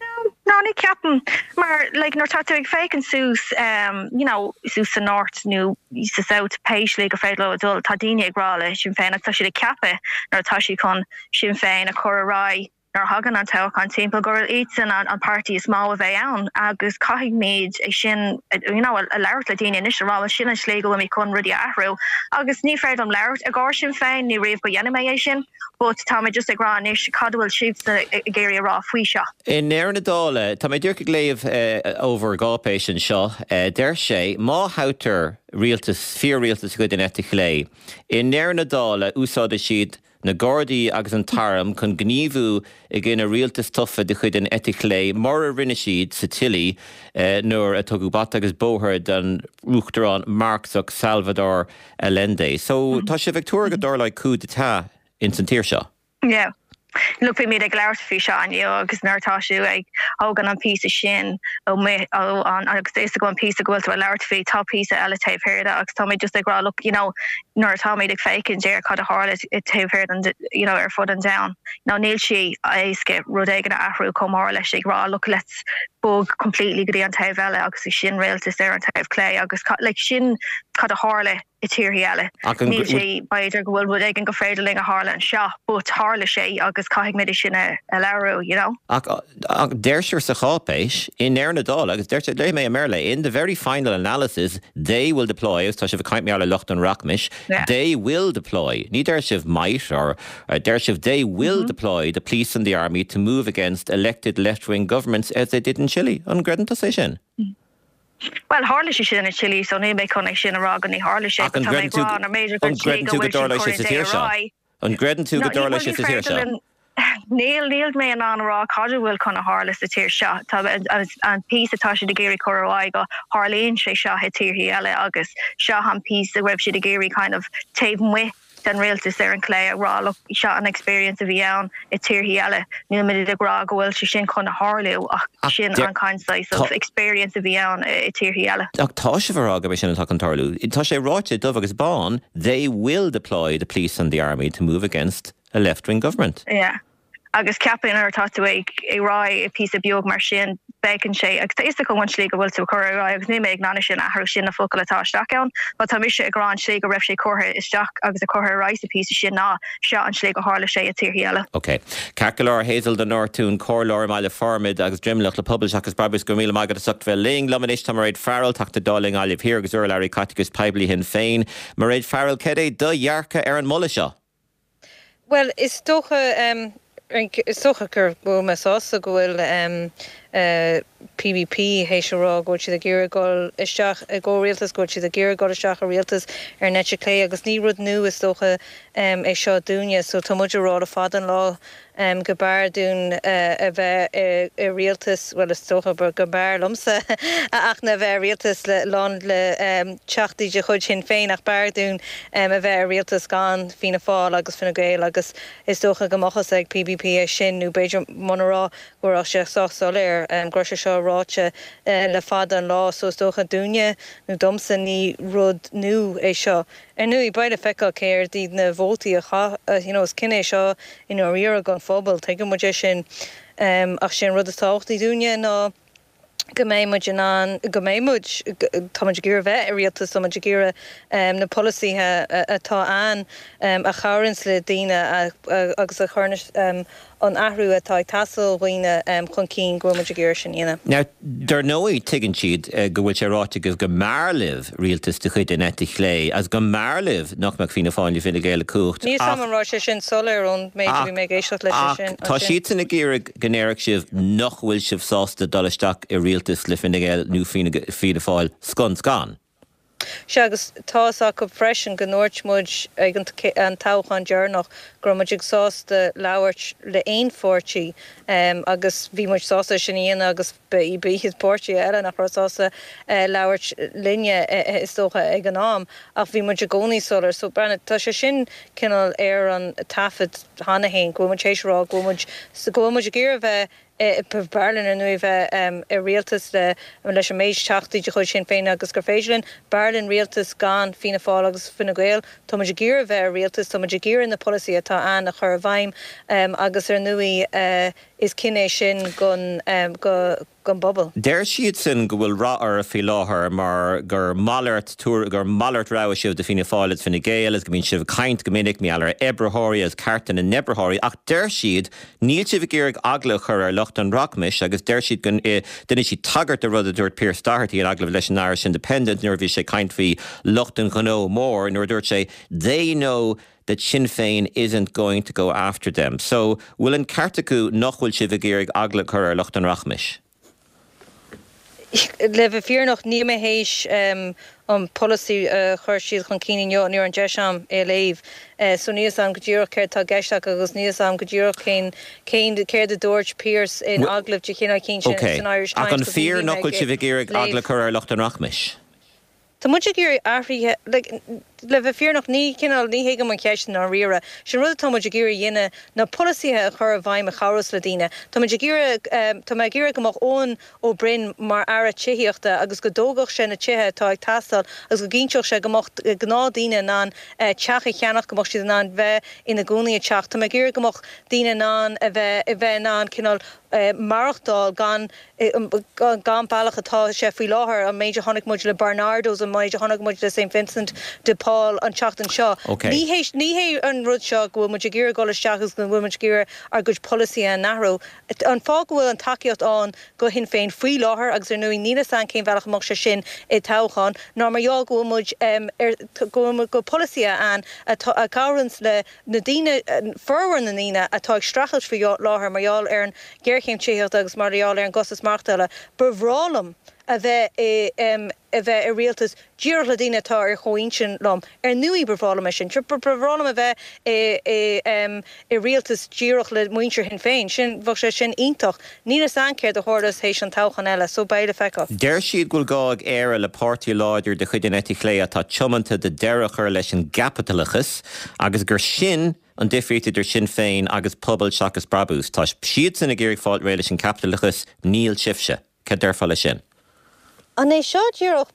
F: No, no, ní ceapaim. Mar, like, nuair tá tú ag féachaint suas, um, you know, suas sa North nó sa South, pé slí gur féidir leo a dul, tá daoine ag rá le Sinn Féin agus tá siad ag ceapadh nuair atá siad chun Sinn Féin a chur ar aghaidh nuair a thagann an toghchán timpeall gur iadsan an, an páirtí is mó a bheidh ann agus caithfimid é sin, you know, a, a labhairt le daoine anois a rá, well, sin an slí go bhfuilimid chun rudaí a athrú agus ní féidir liom labhairt i gcomhair Sinn Féin, ní riamh go dhéanfaidh mé é sin. But tá mé just ag rá anois cad a bhfuil sibhse ag iarraidh a rá faoi seo.
A: I ndeireadh na dála, tá mé díreach ag léamh ó bhur gcáipéis anseo, deir sé, má thoghtar rialtas, fíor-rialtas de chuid an eite chlé, i ndeireadh na dála úsáidfidh siad na Gardaí agus an tArm chun gníomhú i gcoinne rialtas tofa de chuid an eite chlé mar a rinne siad sa tSile nuair a tugadh bata agus bóthar don Uachtarán Marxach Salvador Allende. So, tá sibh ag tuar go dtarlóidh coup d'état ins an tír seo?
F: Yeah. Look, bhí muid ag labhairt faoi seo inniu agus nuair atá tú ag thógaint an píosa sin ó ó an agus is go an píosa go bhfuil tú ag labhairt faoi, tá píosa eile taobh thiar de agus tá mé just ag rá look, you know, nuair atá muid ag féachaint ar cad a tharla taobh thiar den, you know, ar fud an domhain, you know, níl sé éasca rud éigin a athrú chomh mór leis ag rá look, let's bog completely go dtí an taobh eile agus sin rialtas ar an taobh clé agus like sin cad a tharla i tíorthaí eile. Níl sé b'fhéidir go bhfuil rud éigin go féidir linn a tharla anseo but tharla sé agus caithfidh muid é sin a labhrú, you know.
A: Ach deirtear sa cháipéis, i ndeireadh na dála, agus deirtear, léifidh mé i mBéarla, in the very final analysis, they will deploy, agus tá sibh ag caint mar gheall ar lucht an rachmais, they will deploy, ní deir sibh might or, deir sibh they will deploy the police and the army to move against elected left-wing governments as they did in Chile. An gcreideann tusa é sin?
F: Bhuel, tharla sé sin i Chile, so níl mé chun é sin a rá go ní tharla sé,
A: but tá mé ag rá nar b'fhéidir gur slí go bhfuil sin curtha dé ar aghaidh. An gcreideann tú go dtarlóidh sé sa tír seo?
F: Níl, níl mé in ann a rá cad a bhfuil chun a tharla sa tír seo. Tá an píosa atá siad ag iarraidh cur ar aghaidh go tharlaíonn sé seo i tíorthaí eile agus seo an píosa a raibh siad ag iarraidh kind of taobh amuigh den rialtas ar an chlé ag rá look seo an experience a bhí ann i tíorthaí eile. Níl muid ag rá go bhfuil sé sin chun a tharlú ach sin an kind saghas of experience a bhí ann i tíorthaí eile.
A: Ach tá sibh ag rá gurb é sin atá chun tarlú. Tá sé ráite dubh agus bán, they will deploy the police and the army to move against a left-wing government.
F: Yeah. Agus ceapaim nuair atá tú ag rá i píosa beag mar sin, beigeann sé, agus tá fhios agam an tslí go bhfuil tú ag cur ar aghaidh agus níl mé ag in ann sin a athrú, sin na focail atá isteach ann, but tá mise ag rá an tslí go raibh sé curtha isteach agus a curtha ar aghaidh sa phíosa sin ná seo an tslí go tharla sé i tíorthaí eile.
A: Ok. Ceart go leor, Hazel de Nortún, Comhairleoir i mBaile Formaid agus Droimneach le Pobal Seachas Brabús, go raibh míle maith agat as ucht bheith linn. Liom anois tá Mairéad Farrell, Teachta Dála i nGaillimh Thiar agus urlabhraí Caiteachais Poiblí Shinn Féin. Mairéad Farrell, cad é do dhearcadh ar an moladh seo?
G: Bhuel, is dócha, is dócha go bhfuil mé sásta go bhfuil. PBP théis a rá go bhfuil siad ag iarraidh dul isteach i gcomhrialtas, go bhfuil siad ag iarraidh dul isteach i rialtas ar an eite chlé agus ní rud nua is dócha é seo dúinne. So tá muid ag rá le fada an lá go mb'fhearr dúinn a bheith i rialtas, bhuel is dócha go mb'fhearr liomsa a Fhachtna a bheith i rialtas le lán le teachtaí de chuid Shinn Féin ach b'fhearr dúinn a bheith i rialtas gan Fianna Fáil agus Fine Gael agus is dócha go mbeadh fhios ag PBP é sin nó b'fhéidir muna raibh go raibh sé sách soiléir go raibh sé seo ráite le fada an lá so is dócha dúinne nó domsa ní rud nua é seo. Ar ndóigh beidh le feiceáil céard iad na vótaí a chaith you know is cinneadh é seo i ndáiríre don phobal, tuigeann muid é sin ach sé an rud is tábhachtaí dúinne ná go mbeidh muid in ann, go mbeidh muid, tá muid ag iarraidh bheith i rialtas, tá muid ag iarraidh na polasaithe atá ann a chabhraíonns le daoine agus a chuireann an athrú atá ag teastáil ó dhaoine chun cinn, go bhfuil muid ag iarraidh sin a dhéanamh.
A: Now, dar ndóigh, tuigeann siad go bhfuil sé ráite agaibh go mb'fhearr libh rialtas de chuid an eite chlé agus go mb'fhearr libh nach mbeadh Fianna Fáil nó Fine Gael i gcumhacht
G: Níl 's a'm an raibh sé sin soiléir ón méid a bhí mé ag éisteacht leis
A: ansin. Ach tá siadsan ag iarraidh go ndéarfadh sibh nach bhfuil sibh sásta dul isteach i rialtas le Fine Gael nó Fianna Fáil scun scan.
G: Sea, agus tá fhios acu freisin go ndúirt muid ag an toghchán deireanach go raibh muid ag sásta labhairt le aon pháirtí agus bhí muid sásta é sin a dhéanamh agus ba iad páirtithe eile nach raibh sásta labhairt linne is dócha ag an am ach bhí muid i gcónaí soiléir. So, breathnaigh, tá sé sin cineál ar an taifead cheana féin go bhfuil muid théis a rá go bhfuil muid, go bhfuil muid ag iarraidh bheith B'fhearr linn ar ndóigh bheith i rialtas le leis an méid teachtaí de chuid Shinn Féin agus gur féidir linn. B'fhearr linn rialtas gan Fianna Fáil agus Fine Gael. Tá muid ag iarraidh bheith i rialtas, tá muid ag iarraidh na polasaithe atá ann a chur i bhfeidhm agus ar ndóigh is cinneadh é sin don don bpobal.
A: Deir siadsan go bhfuil rath oraibh faoi láthair mar gur malairt gur malairt rogha sibh do Fianna Fáil agus Fine Gael agus go mbíonn sibh ag caint go minic mar gheall ar oibritheoirí agus cearta na n-oibritheoirí ach deir siad níl sibh ag iarraidh eagla a chur ar lucht an rachmais agus deir siad go ndéanann siad tagairt do rud a dúirt Pearse Doherty in agallamh leis an Irish Independent nuair a bhí sé ag caint faoi lucht an ghnó mór nuair a dúirt sé they know that Sinn Féin isn't going to go after them. So, bhfuil an ceart acu nach bhfuil sibh ag iarraidh eagla a chur ar lucht an rachmais?
G: Le bheith fírinneach, níl mé théis an polasaí a chuir siad chun cinn inniu, ní raibh an deis a'm é a léamh. So níl 'fhios a'm go díreach céard tá i gceist acu agus níl 'fhios a'm go díreach cén, cén, céard a dúirt Pearse in agallamh de chineál eicínt
A: Ok.
G: san Irish
A: Ach
G: Times
A: an
G: because ní
A: fíor
G: bhí mé
A: nach bhfuil
G: ag
A: sibh ag iarraidh
G: léamh.
A: eagla a chur ar lucht an rachmais?
G: Tá muid ag iarraidh athruithe, like, le bheith fírinneach, ní cineál, ní thuigim an cheist i ndáiríre. Sin rud atá muid ag iarraidh a dhéanamh ná polasaithe a chur i bhfeidhm a chabhrós le daoine. Tá muid ag iarraidh, tá mé ag iarraidh go mbeadh Eoin Ó Broin mar Aire Tithíochta agus go dtógfadh sé na tithe atá ag teastáil agus go gcinnteodh sé go mbeadh gnáthdaoine in ann teach a cheannach, go mbeadh siad in ann bheith ina gcónaí i dteach. Tá mé ag iarraidh go mbeadh daoine in ann a bheith, a bheith in ann cineál maireachtáil gan gan bealach atá sé faoi láthair, an méid a chonaic muid le Barnardos, an méid a chonaic muid le St Vincent de Paul an tseachtain seo. Ní hé ní hé an rud seo go bhfuil muid ag iarraidh dul isteach agus go bhfuil muid ag iarraidh ár gcuid polasaithe a athrú. An fáth go bhfuil an tacaíocht ann go Shinn Féin faoi láthair, agus ar ndóigh níl fhios a'm cén bhealach a mbeadh sé sin i dtoghchán, ná mar gheall go bhfuil muid ar go bhfuil muid go bhfuil polasaithe ann atá a chabhraíonns le na daoine, formhór na ndaoine atá ag streachailt faoi láthair mar gheall ar an ghéarchéim tithíochta agus mar gheall ar an gcostas maireachtála, ba bhreá liom a bheith i a bheith i rialtas díreach le daoine atá ar chomhintinn liom. Ar ndóigh ba bhreá liom é sin. Ba bhreá liom a bheith i i i rialtas díreach le muintir Shinn Féin. Sin, bheadh sé sin iontach. Níl fhios a'm céard a tharlós théis an toghchán eile so beidh le feiceáil.
A: Deir siad go bhfuil gá ag Éire le páirtí láidir de chuid an eite chlé atá tiomanta do deireadh a chur leis an gcaipitleachas agus gur sin an difríocht idir Sinn Féin agus Pobal Seachas Brabús. Tá siadsan ag iarraidh fáil réidh leis an gcaipitleachas, níl sibhse. Cad déarfá leis sin?
G: An é seo díreach,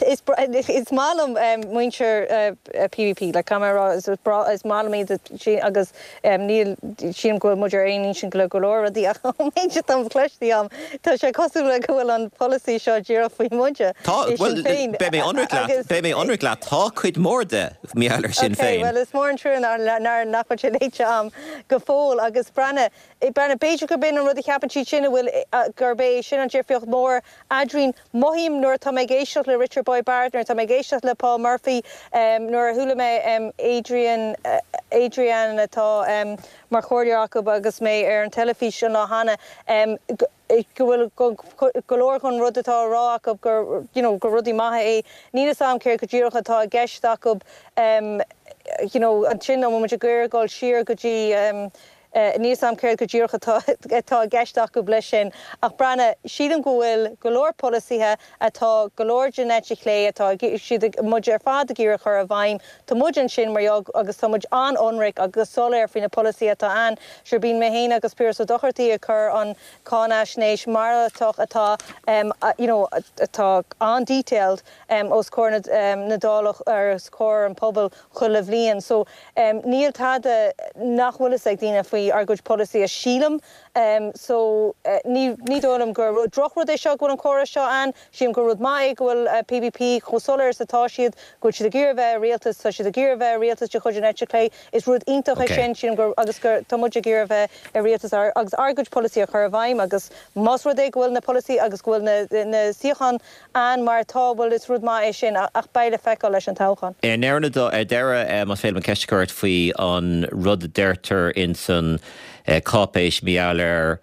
G: is is maith liom muintir PBP, like caithfidh mé a rá, is breá, is maith liom iad agus níl, sílim go bhfuil muid ar aon intinn le go leor rudaí ach ón méid atá cloiste agam, tá sé cosúil le go bhfuil an polasaí seo díreach faoi muide
A: Tá,
G: i
A: bhuel,
G: Sinn Féin
A: beidh mé ionraic leat,
G: agus.
A: beidh mé ionraic leat, tá cuid mhór de mar gheall ar Sinn
G: Ok,
A: Féin.
G: bhuel is mór an trua nár, nár, nach bhfuil sé léite agam go fóill agus breathnaigh, Breathnaigh, b'fhéidir gurb in an rud a cheapann siad sin, a bhfuil, gurb é sin an difríocht mhór eadrainn. Mothaím. mothaím nuair atá mé ag éisteacht le Richard Boyd Barrett, nuair atá mé ag éisteacht le Paul Murphy, nuair a chuala mé Adrian, Adrian atá mar chomhairleoir acu agus mé ar an teilifís an lá cheana, go bhfuil go leor den rud atá á rá acu gur, you know, gur rudaí maithe é. Níl fhios a'm céard go díreach atá i gceist acu, you know, ansin an bhfuil muid ag iarraidh dul siar go dtí, Níl fhios a'm céard go díreach atá atá i gceist acu leis sin, ach breathnaigh, sílim go bhfuil go leor polasaithe atá go leor den eite chlé atá siad ag, muid ar fad ag iarraidh a chur i bhfeidhm. Tá muid ansin mar gheall agus tá muid an-ionraic agus soiléir faoi na polasaithe atá ann. Sure bíonn mé féin agus Piaras Ó Dochartaigh ag cur an cáinaisnéis malartach atá you know atá an-detailed os comhair na na Dála os comhair an pobail chuile bhliain. So níl tada nach bhfuil fhios ag daoine faoi ár gcuid polasaithe, sílim. So ní ní dóigh liom gur drochrud é seo go bhfuil an comhrá seo ann. Sílim gur rud maith é go bhfuil PBP chomh soiléir is atá siad, go bhfuil siad ag iarraidh a bheith i rialtas, tá siad ag iarraidh a bheith i rialtas de chuid an eite chlé. Is rud iontach é sin, sílim gur agus gur tá muid ag iarraidh a bheith i rialtas agus ár gcuid polasaithe a chur i bhfeidhm agus más rud é go bhfuil na polasaithe agus go bhfuil na na suíocháin ann mar atá, bhuel is rud maith é sin ach beidh le feiceáil leis an toghchán.
A: I ndeireadh, más féidir liom ceist a chur ort faoi an rud a deirtear ins an cáipéis mar gheall ar,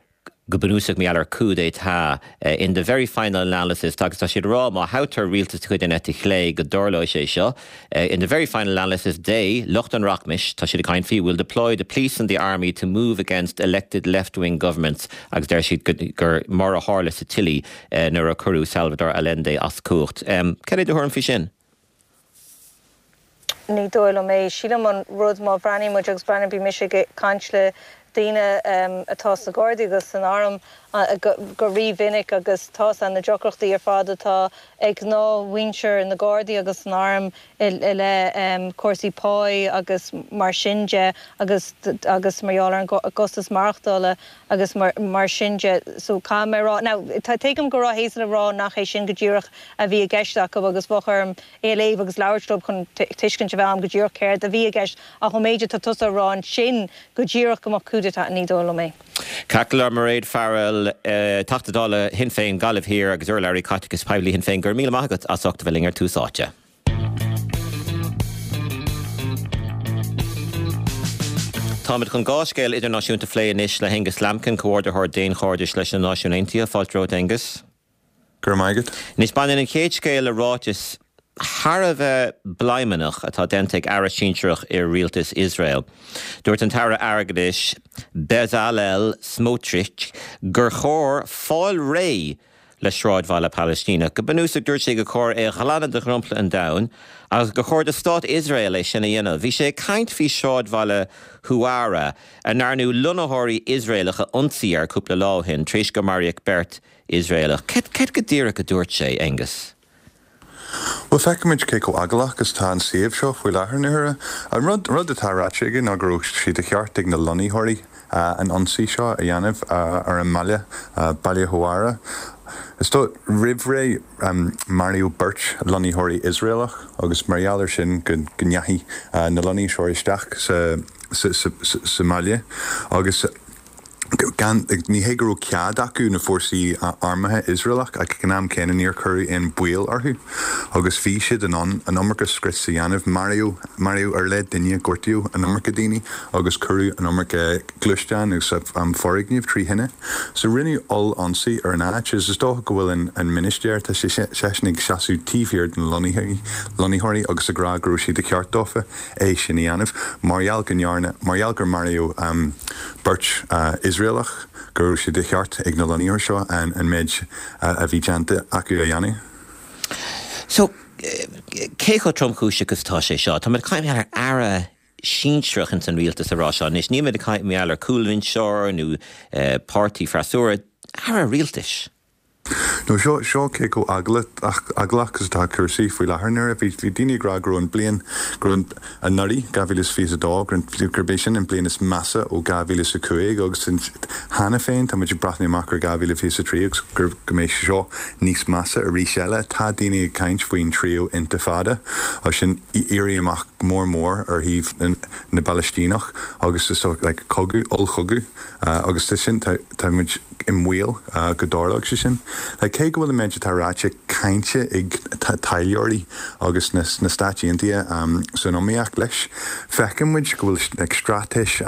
A: go bunúsach mar gheall ar coup d'état, in the very final analysis, agus tá siad ag rá má thoghtar rialtas de chuid an eite chlé go dtarlóidh sé seo, in the very final analysis they, lucht an rachmais, tá siad ag caint faoi, will deploy the police and the army to move against elected left-wing governments agus deir siad gur mar a tharla sa tSile nuair a cuireadh Salvador Allende as cumhacht. Cad é do thuairim faoi sin?
G: Ní dóigh liom é. Sílim an rud má bhreathnaíonn muid agus breathnaíonn, bhí mise ag caint le daoine atá sna Gardaí agus san Arm go rí-mhinic agus tá's a'm na deacrachtaí ar fad atá ag gnáthmhuintir na Gardaí agus san Arm i leith cúrsaí páí agus mar sin de agus agus mar gheall ar an gcostas maireachtála agus mar sin de. So caithfidh mé a rá, now tuigim go raibh Hazel ag rá nach é sin go díreach a bhí i gceist acu agus bheadh orm é a léamh agus labhairt leo chun tuiscint a bheith agam go díreach céard a bhí i gceist ach ón méid atá tusa a rá ansin go díreach go mbeadh coup d'état, ní dóigh liom é.
A: Ceart go leor, Mairéad Farrell, Teachta Dála Shinn Féin, Gaillimh Thiar agus urlabhraí caiteachais poiblí Shinn Féin, go raibh míle maith agat as ucht a bheith linn ar Tús Áite. Táimid chun dhá scéal idirnáisiúnta a phlé anois le hAengus Lambkin, Comhordaitheoir Daonchairdis leis na Náisiúin Aontaithe. Fáilte romhat, Aengus.
H: Go raibh maith agat.
A: Anois, baineann an chéad scéal le ráiteas thar a bheith bladhmannach atá déanta ag aire sinsearach i rialtas Iosrael. Dúirt an tAire Airgeadais Bezalel Smotrich gur chóir fáil réidh le sráidbhaile Palaistíneach. Go bunúsach, dúirt sé gur chóir é a ghlanadh de dhromchla an domhain agus gur chóir do stát Iosrael é sin a dhéanamh. Bhí sé ag caint faoi shráidbhaile Huwara, a ndearnadh lonnaitheoirí Iosraelach a ionsaí air cúpla lá ó shin tar éis gur maraíodh beirt Iosraelach. Céard go díreach a dúirt sé, Aengus?
H: Bhuel, feicimid cé chomh eaglach is atá an suíomh seo faoi láthair na huaire. An rud rud atá ráite aige ná go raibh sé de cheart ag na lonnaitheoirí an ionsaí seo a dhéanamh ar an mbaile, Baile Huwara. Is dóigh, roimh ré, maraíodh beirt lonnaitheoirí Iosraelach agus mar gheall ar sin go ndeachaigh na lonnaitheoirí isteach sa sa mbaile agus gan, ní hé go raibh cead acu, na fórsaí armtha Iosraelach, ach ag an am céanna níor cuireadh aon baol orthu agus bhí siad in ann an iomarca scrios a dhéanamh. Maraíodh, maraíodh ar leith duine, gortaíodh an iomarca daoine agus cuireadh an iomarca gluaisteán agus foirgneamh trí thine. So rinneadh oll-ionsaí ar an áit agus is dócha go bhfuil an, an ministéir, tá sé, seisean ag seasamh taobh thiar de na lonnaithe, lonnaitheoirí agus ag rá go raibh sé de cheart dófa é sin a dhéanamh. Mar gheall go ndearna, mar gheall gur maraíodh beirt Iosraelach, go raibh sé de cheart ag na lonnaitheoirí seo an méid a bhí déanta acu a dhéanamh.
A: So, cé chomh tromchúiseach is atá sé seo? Táimid ag caint ar aire sinsearach ins an rialtas ag rá seo anois. Nílimid ag caint mar gheall ar chúlbhinseoir nó páirtí freasúra, aire rialtais.
H: No, seo, seo cé chomh eaglach is atá cúrsaí faoi láthair nuair a bhí, bhí daoine ag rá go raibh an bliain, go raibh an, anuraidh, 2022, go raibh, gurb é sin an bliain is measa ó 2005 agus cheana féin tá muid ag breathnú amach ar 2023 agus gur, go mbeidh seo níos measa arís eile. Tá daoine ag caint faoin tríú Intifada, sin éirí amach. mór mór ar thaobh na bPalaistíneach agus is like cogadh, ollchogadh agus tá sin, tá muid i mbaol go dtarlódh sé sin. Like cé go bhfuil an méid atá ráite cáinte ag taidhleoirí agus na Stáit Aontaithe san iomaíocht leis, feiceann muid go bhfuil like straitéis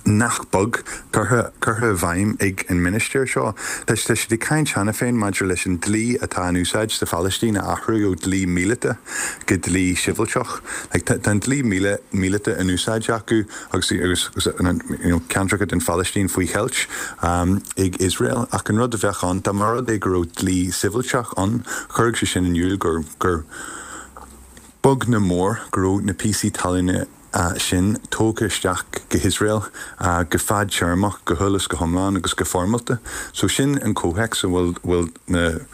H: nach beag curtha i bhfeidhm ag an ministir seo. Tá siad ag caint cheana féin maidir leis an dlí atá in úsáid sa Phalaistín a athrú ó dlí míleata go dlí sibhialtach. Tá an dlí míleata in úsáid acu agus ceantracha den Phalaistín faoi cheilt ag Iosrael ach an rud a bheadh ann dá mba rud é go raibh dlí sibhialtach ann chuirfeadh sé sin in iúl gur beag nó mór go raibh na píosaí talún sin tógtha isteach go hIosrael go fadtéarmach, go huile is go hiomlán agus go foirmeálta. So sin an comhthéacs a bhfuil bhfuil na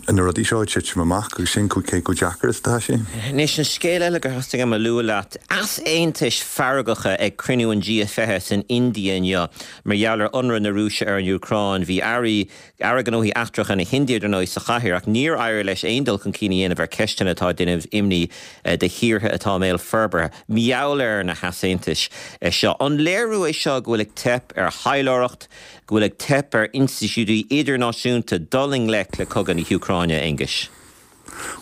H: na rudaí seo ag titim amach agus sin cé chomh deacair is atá sé.
A: Anois, an scéal eile gur theastaigh uaim a lua leat, easaontais feargacha ag cruinniú an G20 san India inniu mar gheall ar ionradh na Rúise ar an Úcráin. Bhí airí Aire Gnóthaí Eachtracha na hIndia, dar ndóigh, sa chathaoir, ach níor éirigh leis aon dul chun cinn a dhéanamh ar cheisteanna atá ag déanamh imní do thíortha atá i mbéal forbartha. Mar gheall ar na heasaontais seo, an léiriú é seo go bhfuil ag teip ar thaidhleoireacht, go bhfuil ag teip ar institiúidí idirnáisiúnta dul i ngleic le cogadh na hÚcráine, a Aonghuis?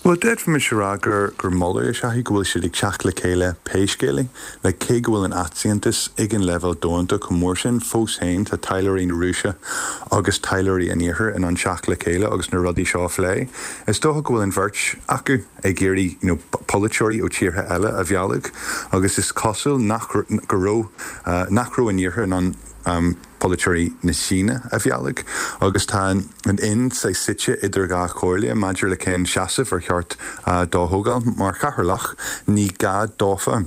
H: Bhuel, d'fhéadfaimis a rá gur gur moladh is ea é go bhfuil siad ag teacht le chéile pé scéal é. Like, cé go bhfuil an easaontas ag an leibhéal domhanda chomh mór sin, fós féin tá taidhleoirí na Rúise agus taidhleoirí an Iarthair in ann teacht le chéile agus na rudaí seo a phlé. Is dócha go bhfuil an bheirt acu ag iarraidh you know polaiteoirí ó tíortha eile a mhealladh agus is cosúil nach go raibh nach raibh an Iarthar in ann polaiteoirí na Síne a mhealladh agus tá an Ind saghas suite idir dhá chomhairle maidir le cén seasamh ar cheart dó a thógáil. Mar chathaoirleach, ní gá dófa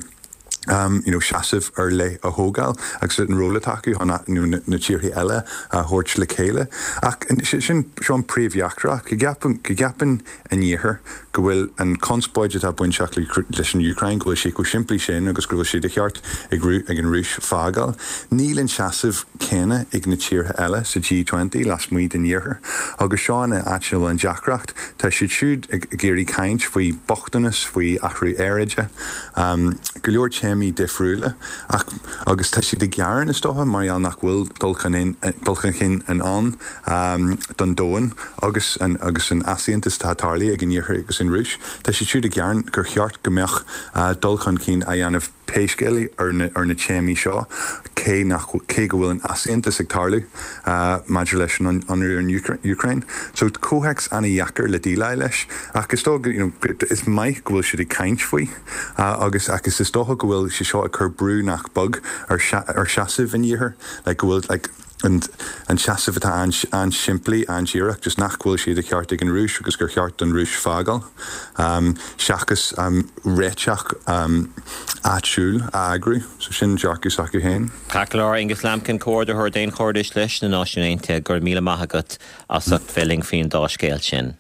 H: you know seasamh ar leith a thógáil agus an ról atá acu chun you know na tíortha eile a thabhairt le chéile. Ach sin seo an príomhdheacracht, go gceapann go gceapann an Iarthar go bhfuil an chonspóid atá bainteach leis an Úcráin, go bhfuil sé chomh simplí sin agus go bhfuil sé de cheart ag an Rúis fágáil. Níl an seasamh céanna ag na tíortha eile sa G20 lasmuigh den Iarthar agus seo an áit ina bhfuil an deacracht. Tá siad siúd ag iarraidh caint faoi bochtanas, faoi athrú aeráide, go leor téamaí difriúla ach agus tá siad ag gearán is dócha mar gheall nach bhfuil dul chun cinn in ann don domhan agus an agus an easaontas atá tarlaithe ag an Iarthar agus an Rúis. Tá siad siúd ag gearán gur cheart go mbeadh dul chun cinn á dhéanamh pé scéal é ar na ar na téamaí seo cé nach cé go bhfuil an easaontas ag tarlú maidir leis an ionradh ar an Úcráin. So comhthéacs ana-dheacair le déileáil leis ach is dóigh you know is maith go bhfuil siad ag caint faoi agus agus is dócha go bhfuil sé seo ag cur brú nach beag ar ar seasamh an Iarthair like go bhfuil like an seasamh atá an-simplí, an-díreach, just nach bhfuil sé de cheart ag an Rúis agus gur cheart don Rúis fágáil, seachas réiteach áitiúil a eagrú. So sin dearcadh s'acu féin.
A: Ceart go leor, Aonghus Lambkin, Comhordaitheoir Daonchairdis leis na Náisiúin Aontaithe, go raibh míle maith agat as ucht bheith linn faoin dá scéal sin.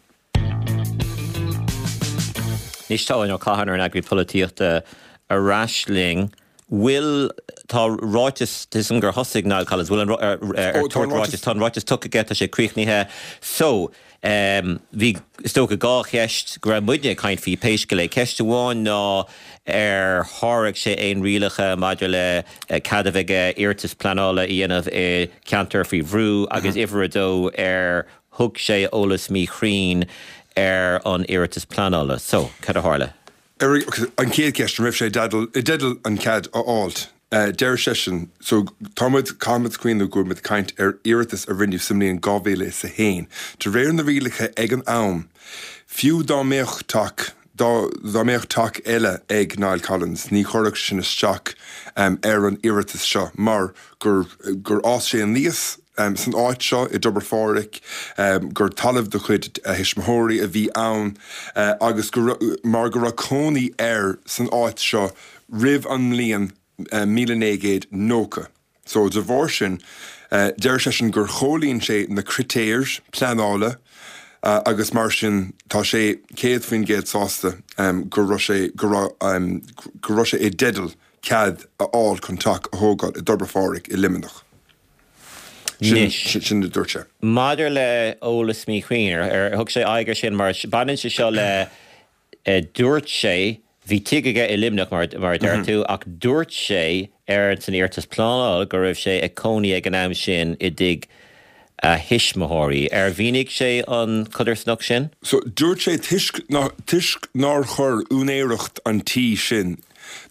A: Anois tá Eoin Ó Catháin, ár n-eagraí polaitíochta, ar ais linn. Bhfuil, tá ráiteas, tuigim gur thosaigh Niall Collins, bhfuil an, ar, ar Ó, tá an tabhairt ráiteas, tá an ráiteas tugtha aige, tá sé críochnaithe. So, bhí, is dócha, dhá cheist go raibh muidne ag caint faoi pé scéal é. Ceist amháin ná ar sháraigh sé aon rialacha maidir le cead a bheith aige iarratas pleanála a dhéanamh i gceantar faoi bhrú agus uimhir a dó ar thug sé eolas míchruinn ar an iarratas pleanála. So, cad a tharla?
D: Ar an chéad cheist, an raibh sé i dteideal an cead a fháilt? Deir seisean, so tá muid, caithfimid cuimhneamh go bhfuil muid ag caint ar iarratas a rinneadh sa mbliain 2001. De réir na rialacha ag an am, fiú dá mbeadh teach, dá, dá mbeadh teach eile ag Niall Collins, ní chuirfeadh sin isteach ar an iarratas seo mar gur, gur fhás sé aníos san áit seo i dTobar Phádraig, gur talamh de chuid a thuismitheoirí a bhí ann agus go mar go raibh cónaí air san áit seo roimh an mbliain 1990. So de bharr sin, deir seisean gur chomhlíon sé na critéir pleanála agus mar sin tá sé 100% sásta go raibh sé go raibh go raibh sé i dteideal cead a fháil chun teach a thógáil i dTobar Phádraig i Luimneach. Sin, sin a dúirt sé.
A: Maidir le eolas míchruinn, ar thug sé aghaidh air sin mar baineann sé seo le dúirt sé. Bhí tigh aige i Luimneach, mar a deir tú, ach dúirt sé ar san iarratas pleanála go raibh sé ag cónaí ag an am sin i dtigh a thuismitheoirí. Ar mhínigh sé an chodarsnacht sin?
D: So, dúirt sé toisc toisc nár chuir úinéireacht an tí sin,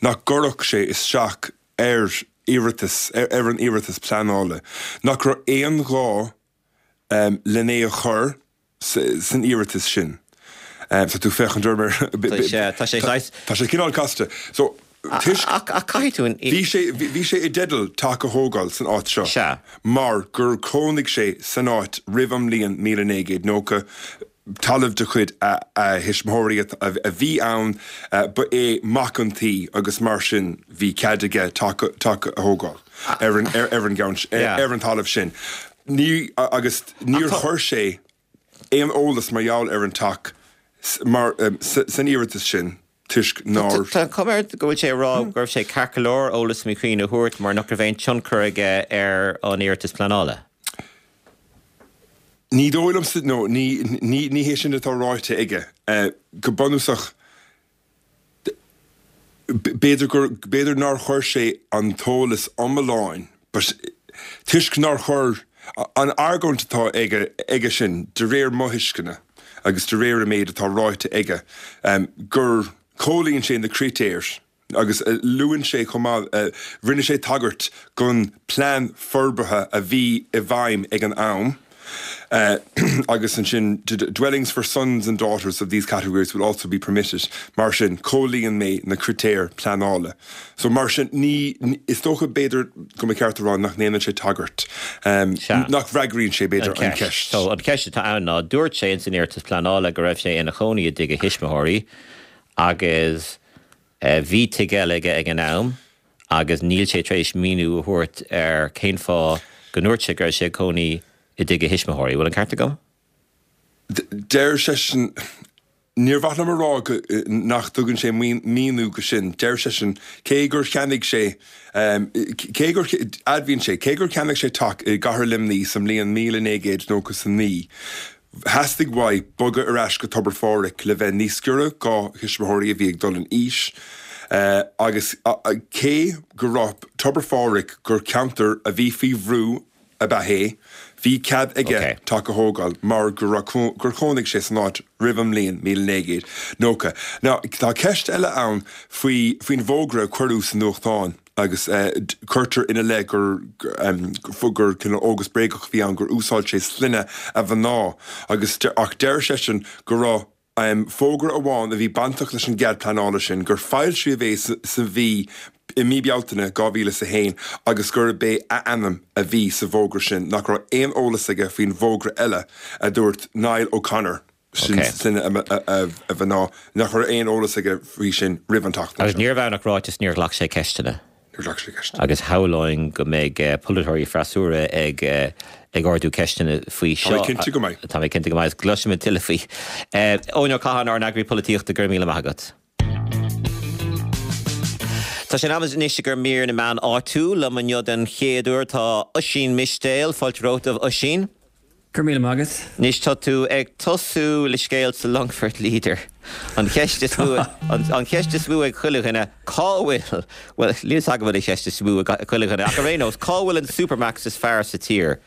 D: nach gcuirfeadh sé isteach ar iarratas, ar an iarratas pleanála, nach raibh aon ghá len é a chur san iarratas sin. Tá tú ag féachaint orm ar.
A: Tá sé saghas.
D: Tá sé cineál casta. So,
A: toisc. Ach caithfidh tú an.
D: Bhí sé, bhí sé i dteideal teach a thógáil san áit seo.
A: Sea.
D: Mar gur chónaigh sé san áit roimh an mbliain 1990, talamh de chuid a thuismitheoirí a bhí ann, ba é mac an tí agus mar sin bhí cead aige teach a thógáil ar an, ar an gceann, ar an talamh sin. Ní, agus níor chuir sé aon eolas mar gheall ar an teach mar, san iarratas sin toisc nár.
A: Tá an chuma air go bhfuil sé ag rá go raibh sé ceart go leor eolas míchruinn a thabhairt mar nach raibh aon tionchar aige ar an iarratas pleanála.
D: Ní dóigh liomsa, nó ní, ní, ní hé sin atá ráite aige. Go bunúsach, B'fhéidir gur, b'fhéidir nár chuir sé an t-eolas iomlán but toisc nár chuir, an argóint atá aige, aige sin, de réir mo thuisceana agus de réir an méid atá ráite aige, gur chomhlíon sé na critéir agus luann sé chomh maith, rinne sé tagairt don plean forbartha a bhí i bhfeidhm ag an am. Agus ansin, dwellings for sons and daughters of these categories will also be permitted. Mar sin, chomhlíon mé na critéir pleanála. So mar sin, ní, is dócha b'fhéidir go mba cheart a rá nach ndéanann sé tagairt, nach bhfreagraíonn sé b'fhéidir an
A: ceist. So an cheist atá ann ná, dúirt sé ins an iarratas pleanála go raibh sé ina chónaí i dtigh a thuismitheoirí agus bhí tigh eile aige ag an am, agus níl sé tar éis míniú a thabhairt ar cén fáth go ndúirt sé go raibh sé ag cónaí i dtigh a thuismitheoirí. Bhfuil an ceart agam?
D: Deir seisean, Níor mhaith liom a rá go, nach dtugann sé míniú go sin. Deir seisean, cé gur cheannaigh sé, cé gur, admhaíonn sé, cé gur cheannaigh sé teach i gcathair Luimnigh sa mbliain 1999, Theastaigh uaidh bogadh ar ais go Tobar Phádraig le bheith níos giorra dhá thuismitheoirí a bhí ag dul in aois agus cé go raibh Tobar Phádraig gur ceantar a bhí faoi bhrú ab ea é, bhí cead aige teach a thógáil mar go raibh gur chónaigh sé san áit roimh an mbliain 1990. Now tá ceist eile ann faoi faoin bhfógra a cuireadh sa nuachtán. agus cuirtear ina leith gur gur cineál fhógra bréagach a bhí ann, gur úsáid sé sloinne a mhná agus ach deir seisean go raibh fógra amháin a bhí bainteach leis an gcead pleanála sin, gur foilsíodh é sa mhí i mí Bealtaine 2001 agus gurb é a ainm a bhí sa bhfógra sin, nach raibh aon eolas aige faoin bhfógra eile, a dúirt Niall O'Connor. Sin sloinne a mhná, nach raibh aon eolas aige faoi sin roimh an tseachtain
A: Agus seo. níorbh ann ach ráiteas níor ghlac sé ceisteanna.
D: Níor ghlac sé ceisteanna.
A: Agus shamhlóinn go mbeidh polaiteoirí freasúra ag ag ardú ceisteanna faoi
D: Tá mé seo. cinnte go mbeidh.
A: Tá mé cinnte go mbeidh. Agus cloisfimid tuilleadh faoi. Eoin Ó Catháin, ár n-eagraí polaitíochta, go raibh míle maith agat. Tá sé in am anois i gcomhair mír na meán áitiúil. Liom inniu den chéad uair tá Oisín Mistéil. Fáilte romhat, a Oisín.
I: Go raibh míle maith agat.
A: Anois tá tú ag tosú le scéal sa Longfort Leader. An cheist is mó, an cheist is mó ag chuile dhuine, cá bhfuil, bhuel, níl 'fhios agam an bhfuil an cheist is mó ag chuile dhuine, ach ar aon nós, cá bhfuil an Supermacs is fearr sa tír?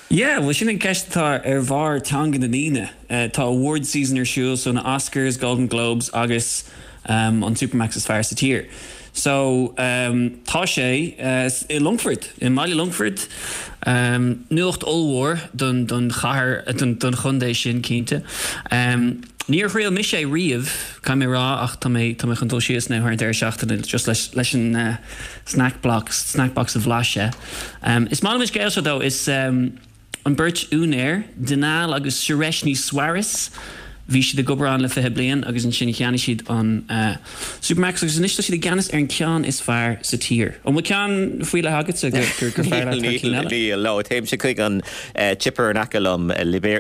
I: Yeah, bhuel sin an ceist atá ar bharr teanga na ndaoine. Tá awards season ar siúl, so na Oscars, Golden Globes agus an Supermacs is fearr sa tír. So tá sé i Longfort, i mbaile Longfoirt. Nuacht ollmhór don don chathair, don don chontae sin cinnte. Níor thriail mise é riamh, caithfidh mé a rá, ach tá mé tá mé chun dul síos now thar an deireadh seachtaine just leis leis an snack box, snack box a bhlaiseadh. Is maith liom an scéal seo though, is an beirt úinéir, Dinal agus Sureshnie Swaris, bhí siad ag obair ann le 20 bliain agus ansin cheannaigh siad an Supermacs agus anois tá siad i gceannas ar an ceann is fearr sa tír. An bhfuil ceann faoi leith agatsa gur gur fearr leat thar cinn eile?
A: Níl, no, téimse chuig an chipper in aice liom,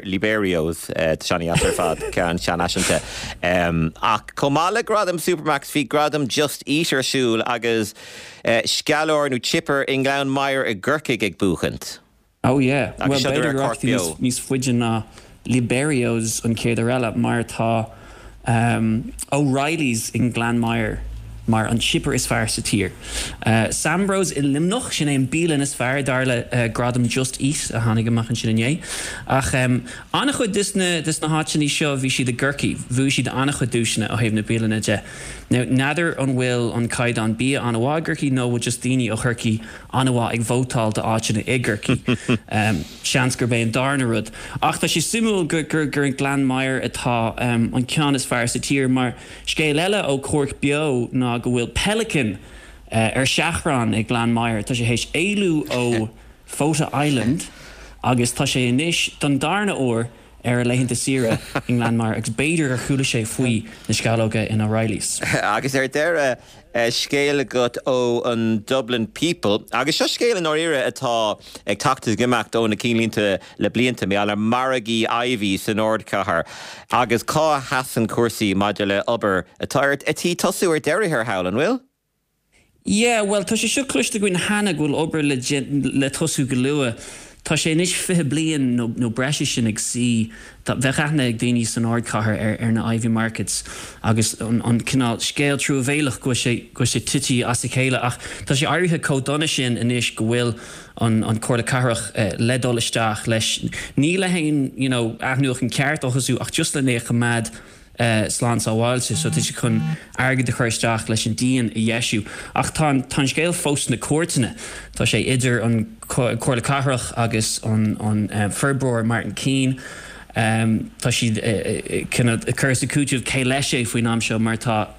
A: Liberio's, tá sé an-deas ar fad, ceann seanfhaiseanta. Ach chomh maith le gradam Supermacs bhí gradam Just Eat ar siúl agus sceallóir nó chipper i nGleann Maghair i gCorcaigh ag buachaint.
I: Oh yeah. Bhuel b'fhéidir go rachaidh tú níos faide ná Liberio's an chéad uair eile mar tá. O'Reilly's i nGleann Maghair mar an chipper is fearr sa tír. Sambros i Luimneach, sin é an bialann is fearr dar le gradam Just Eat a tháinig amach ansin inné. Ach an-chuid des na des na háiteanna seo bhí siad i gCorcaigh, bhuaigh siad an-chuid duaiseanna ó thaobh na bialanna de. Now n'fheadar an bhfuil an caighdeán bia an-mhaith i gCorcaigh nó bhfuil just daoine ó Chorcaigh an-mhaith ag vótáil d'áiteanna i gCorcaigh. Seans gurb é an darna rud. Ach tá sé suimiúil gur gur i nGleann Maghair atá an ceann is fearr sa tír mar scéal eile ó Cork Beo ná go bhfuil pelican ar seachrán i nGleann Maghair. Tá sé théis éalú ó Fota Island agus tá sé anois don darna huair ar a laethanta saoire i nGleann Maghair agus b'fhéidir gur chuala sé faoi na sceallóga in O'Reilly's.
A: Agus ar deireadh, scéal agat ó an Dublin People, agus seo scéal i ndáiríre atá ag teacht is ag imeacht ó na cinnlínte le blianta, mar gheall ar margaí Iveys san ardchathair agus cá a sheasann cúrsaí maidir le obair atá ar tí tosú ar deireadh thiar thall, an bhfuil?
I: Yeah, bhuel, tá sé seo cloiste againn cheana go bhfuil obair le le tosú go luath. Tá sé anois 20 bliain nó nó breis is sin ag suí. Tá, bheadh aithne ag daoine san ardchathair ar ar na Iveagh Markets agus an an cineál scéal truamhéalach go bhfuil sé go bhfuil sé tite as a chéile ach tá sé éirithe chomh dona sin anois go bhfuil an an Comhairle Cathrach le dul isteach leis. Ní le haon you know athnuachan ceart a thosú ach just lena choimeád slán sábháilte so tá siad chun airgead a chur isteach leis an díon a dheisiú. Ach tá an tá an scéal fós sna cúirteanna. Tá sé idir an Comhairle Cathrach agus an an forbróir Martin Keane. Tá siad cineál ag cur is ag cúiteamh cé leis é faoin am seo mar tá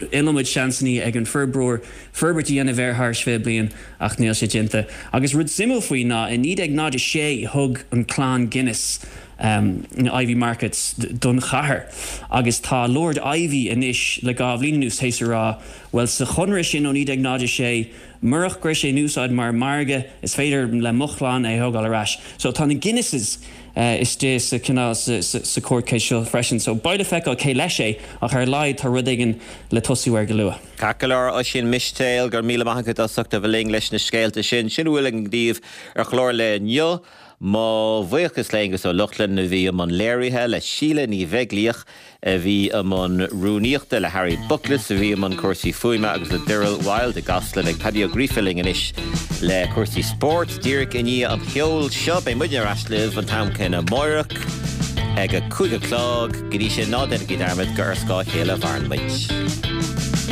I: iliomad seansanna ag an forbróir forbairt a dhéanamh air thar 20 bliain ach níl sé déanta. Agus rud suimiúil faoi ná i 1906 thug an clann Guinness na Iveagh Markets don chathair agus tá Lord Iveagh anois le dhá bhliain anuas théis a rá bhuel sa chonradh sin ó 1906 murach go raibh sé in úsáid mar mhargadh is féidir le mo chlann é a thógáil ar ais. So tá na Guinnesses istigh sa cineál sa court case seo freisin so beidh le feiceáil cé leis é ach ar a laghad tá rud éigin le tosú air go luath.
A: Ceart go leor, Oisín Mistéil, go raibh míle maith agat as ucht a bheith linn leis na scéalta sin. Sin a bhfuil againn daoibh ar chlár lae inniu. Mo bhuíochas le Aonghus Ó Lochlainn a bhí i mbun léirithe, le Síle Ní Bheaglaoich a bhí i mbun rúnaíochta, le Harry Bookless a bhí i mbun cúrsaí fuaime agus le Daryl Wilde i gCasla. Beidh Paddy Ó Gríofa linn anois le cúrsaí spóirt díreach i ndiaidh an cheoil seo. Beidh muidne ar ais libh an t-am céanna amáireach ag a 5 a chlog. Go dtí sin, ná déanaigí dearmad gur ar scáth a chéile a mhaireann muid.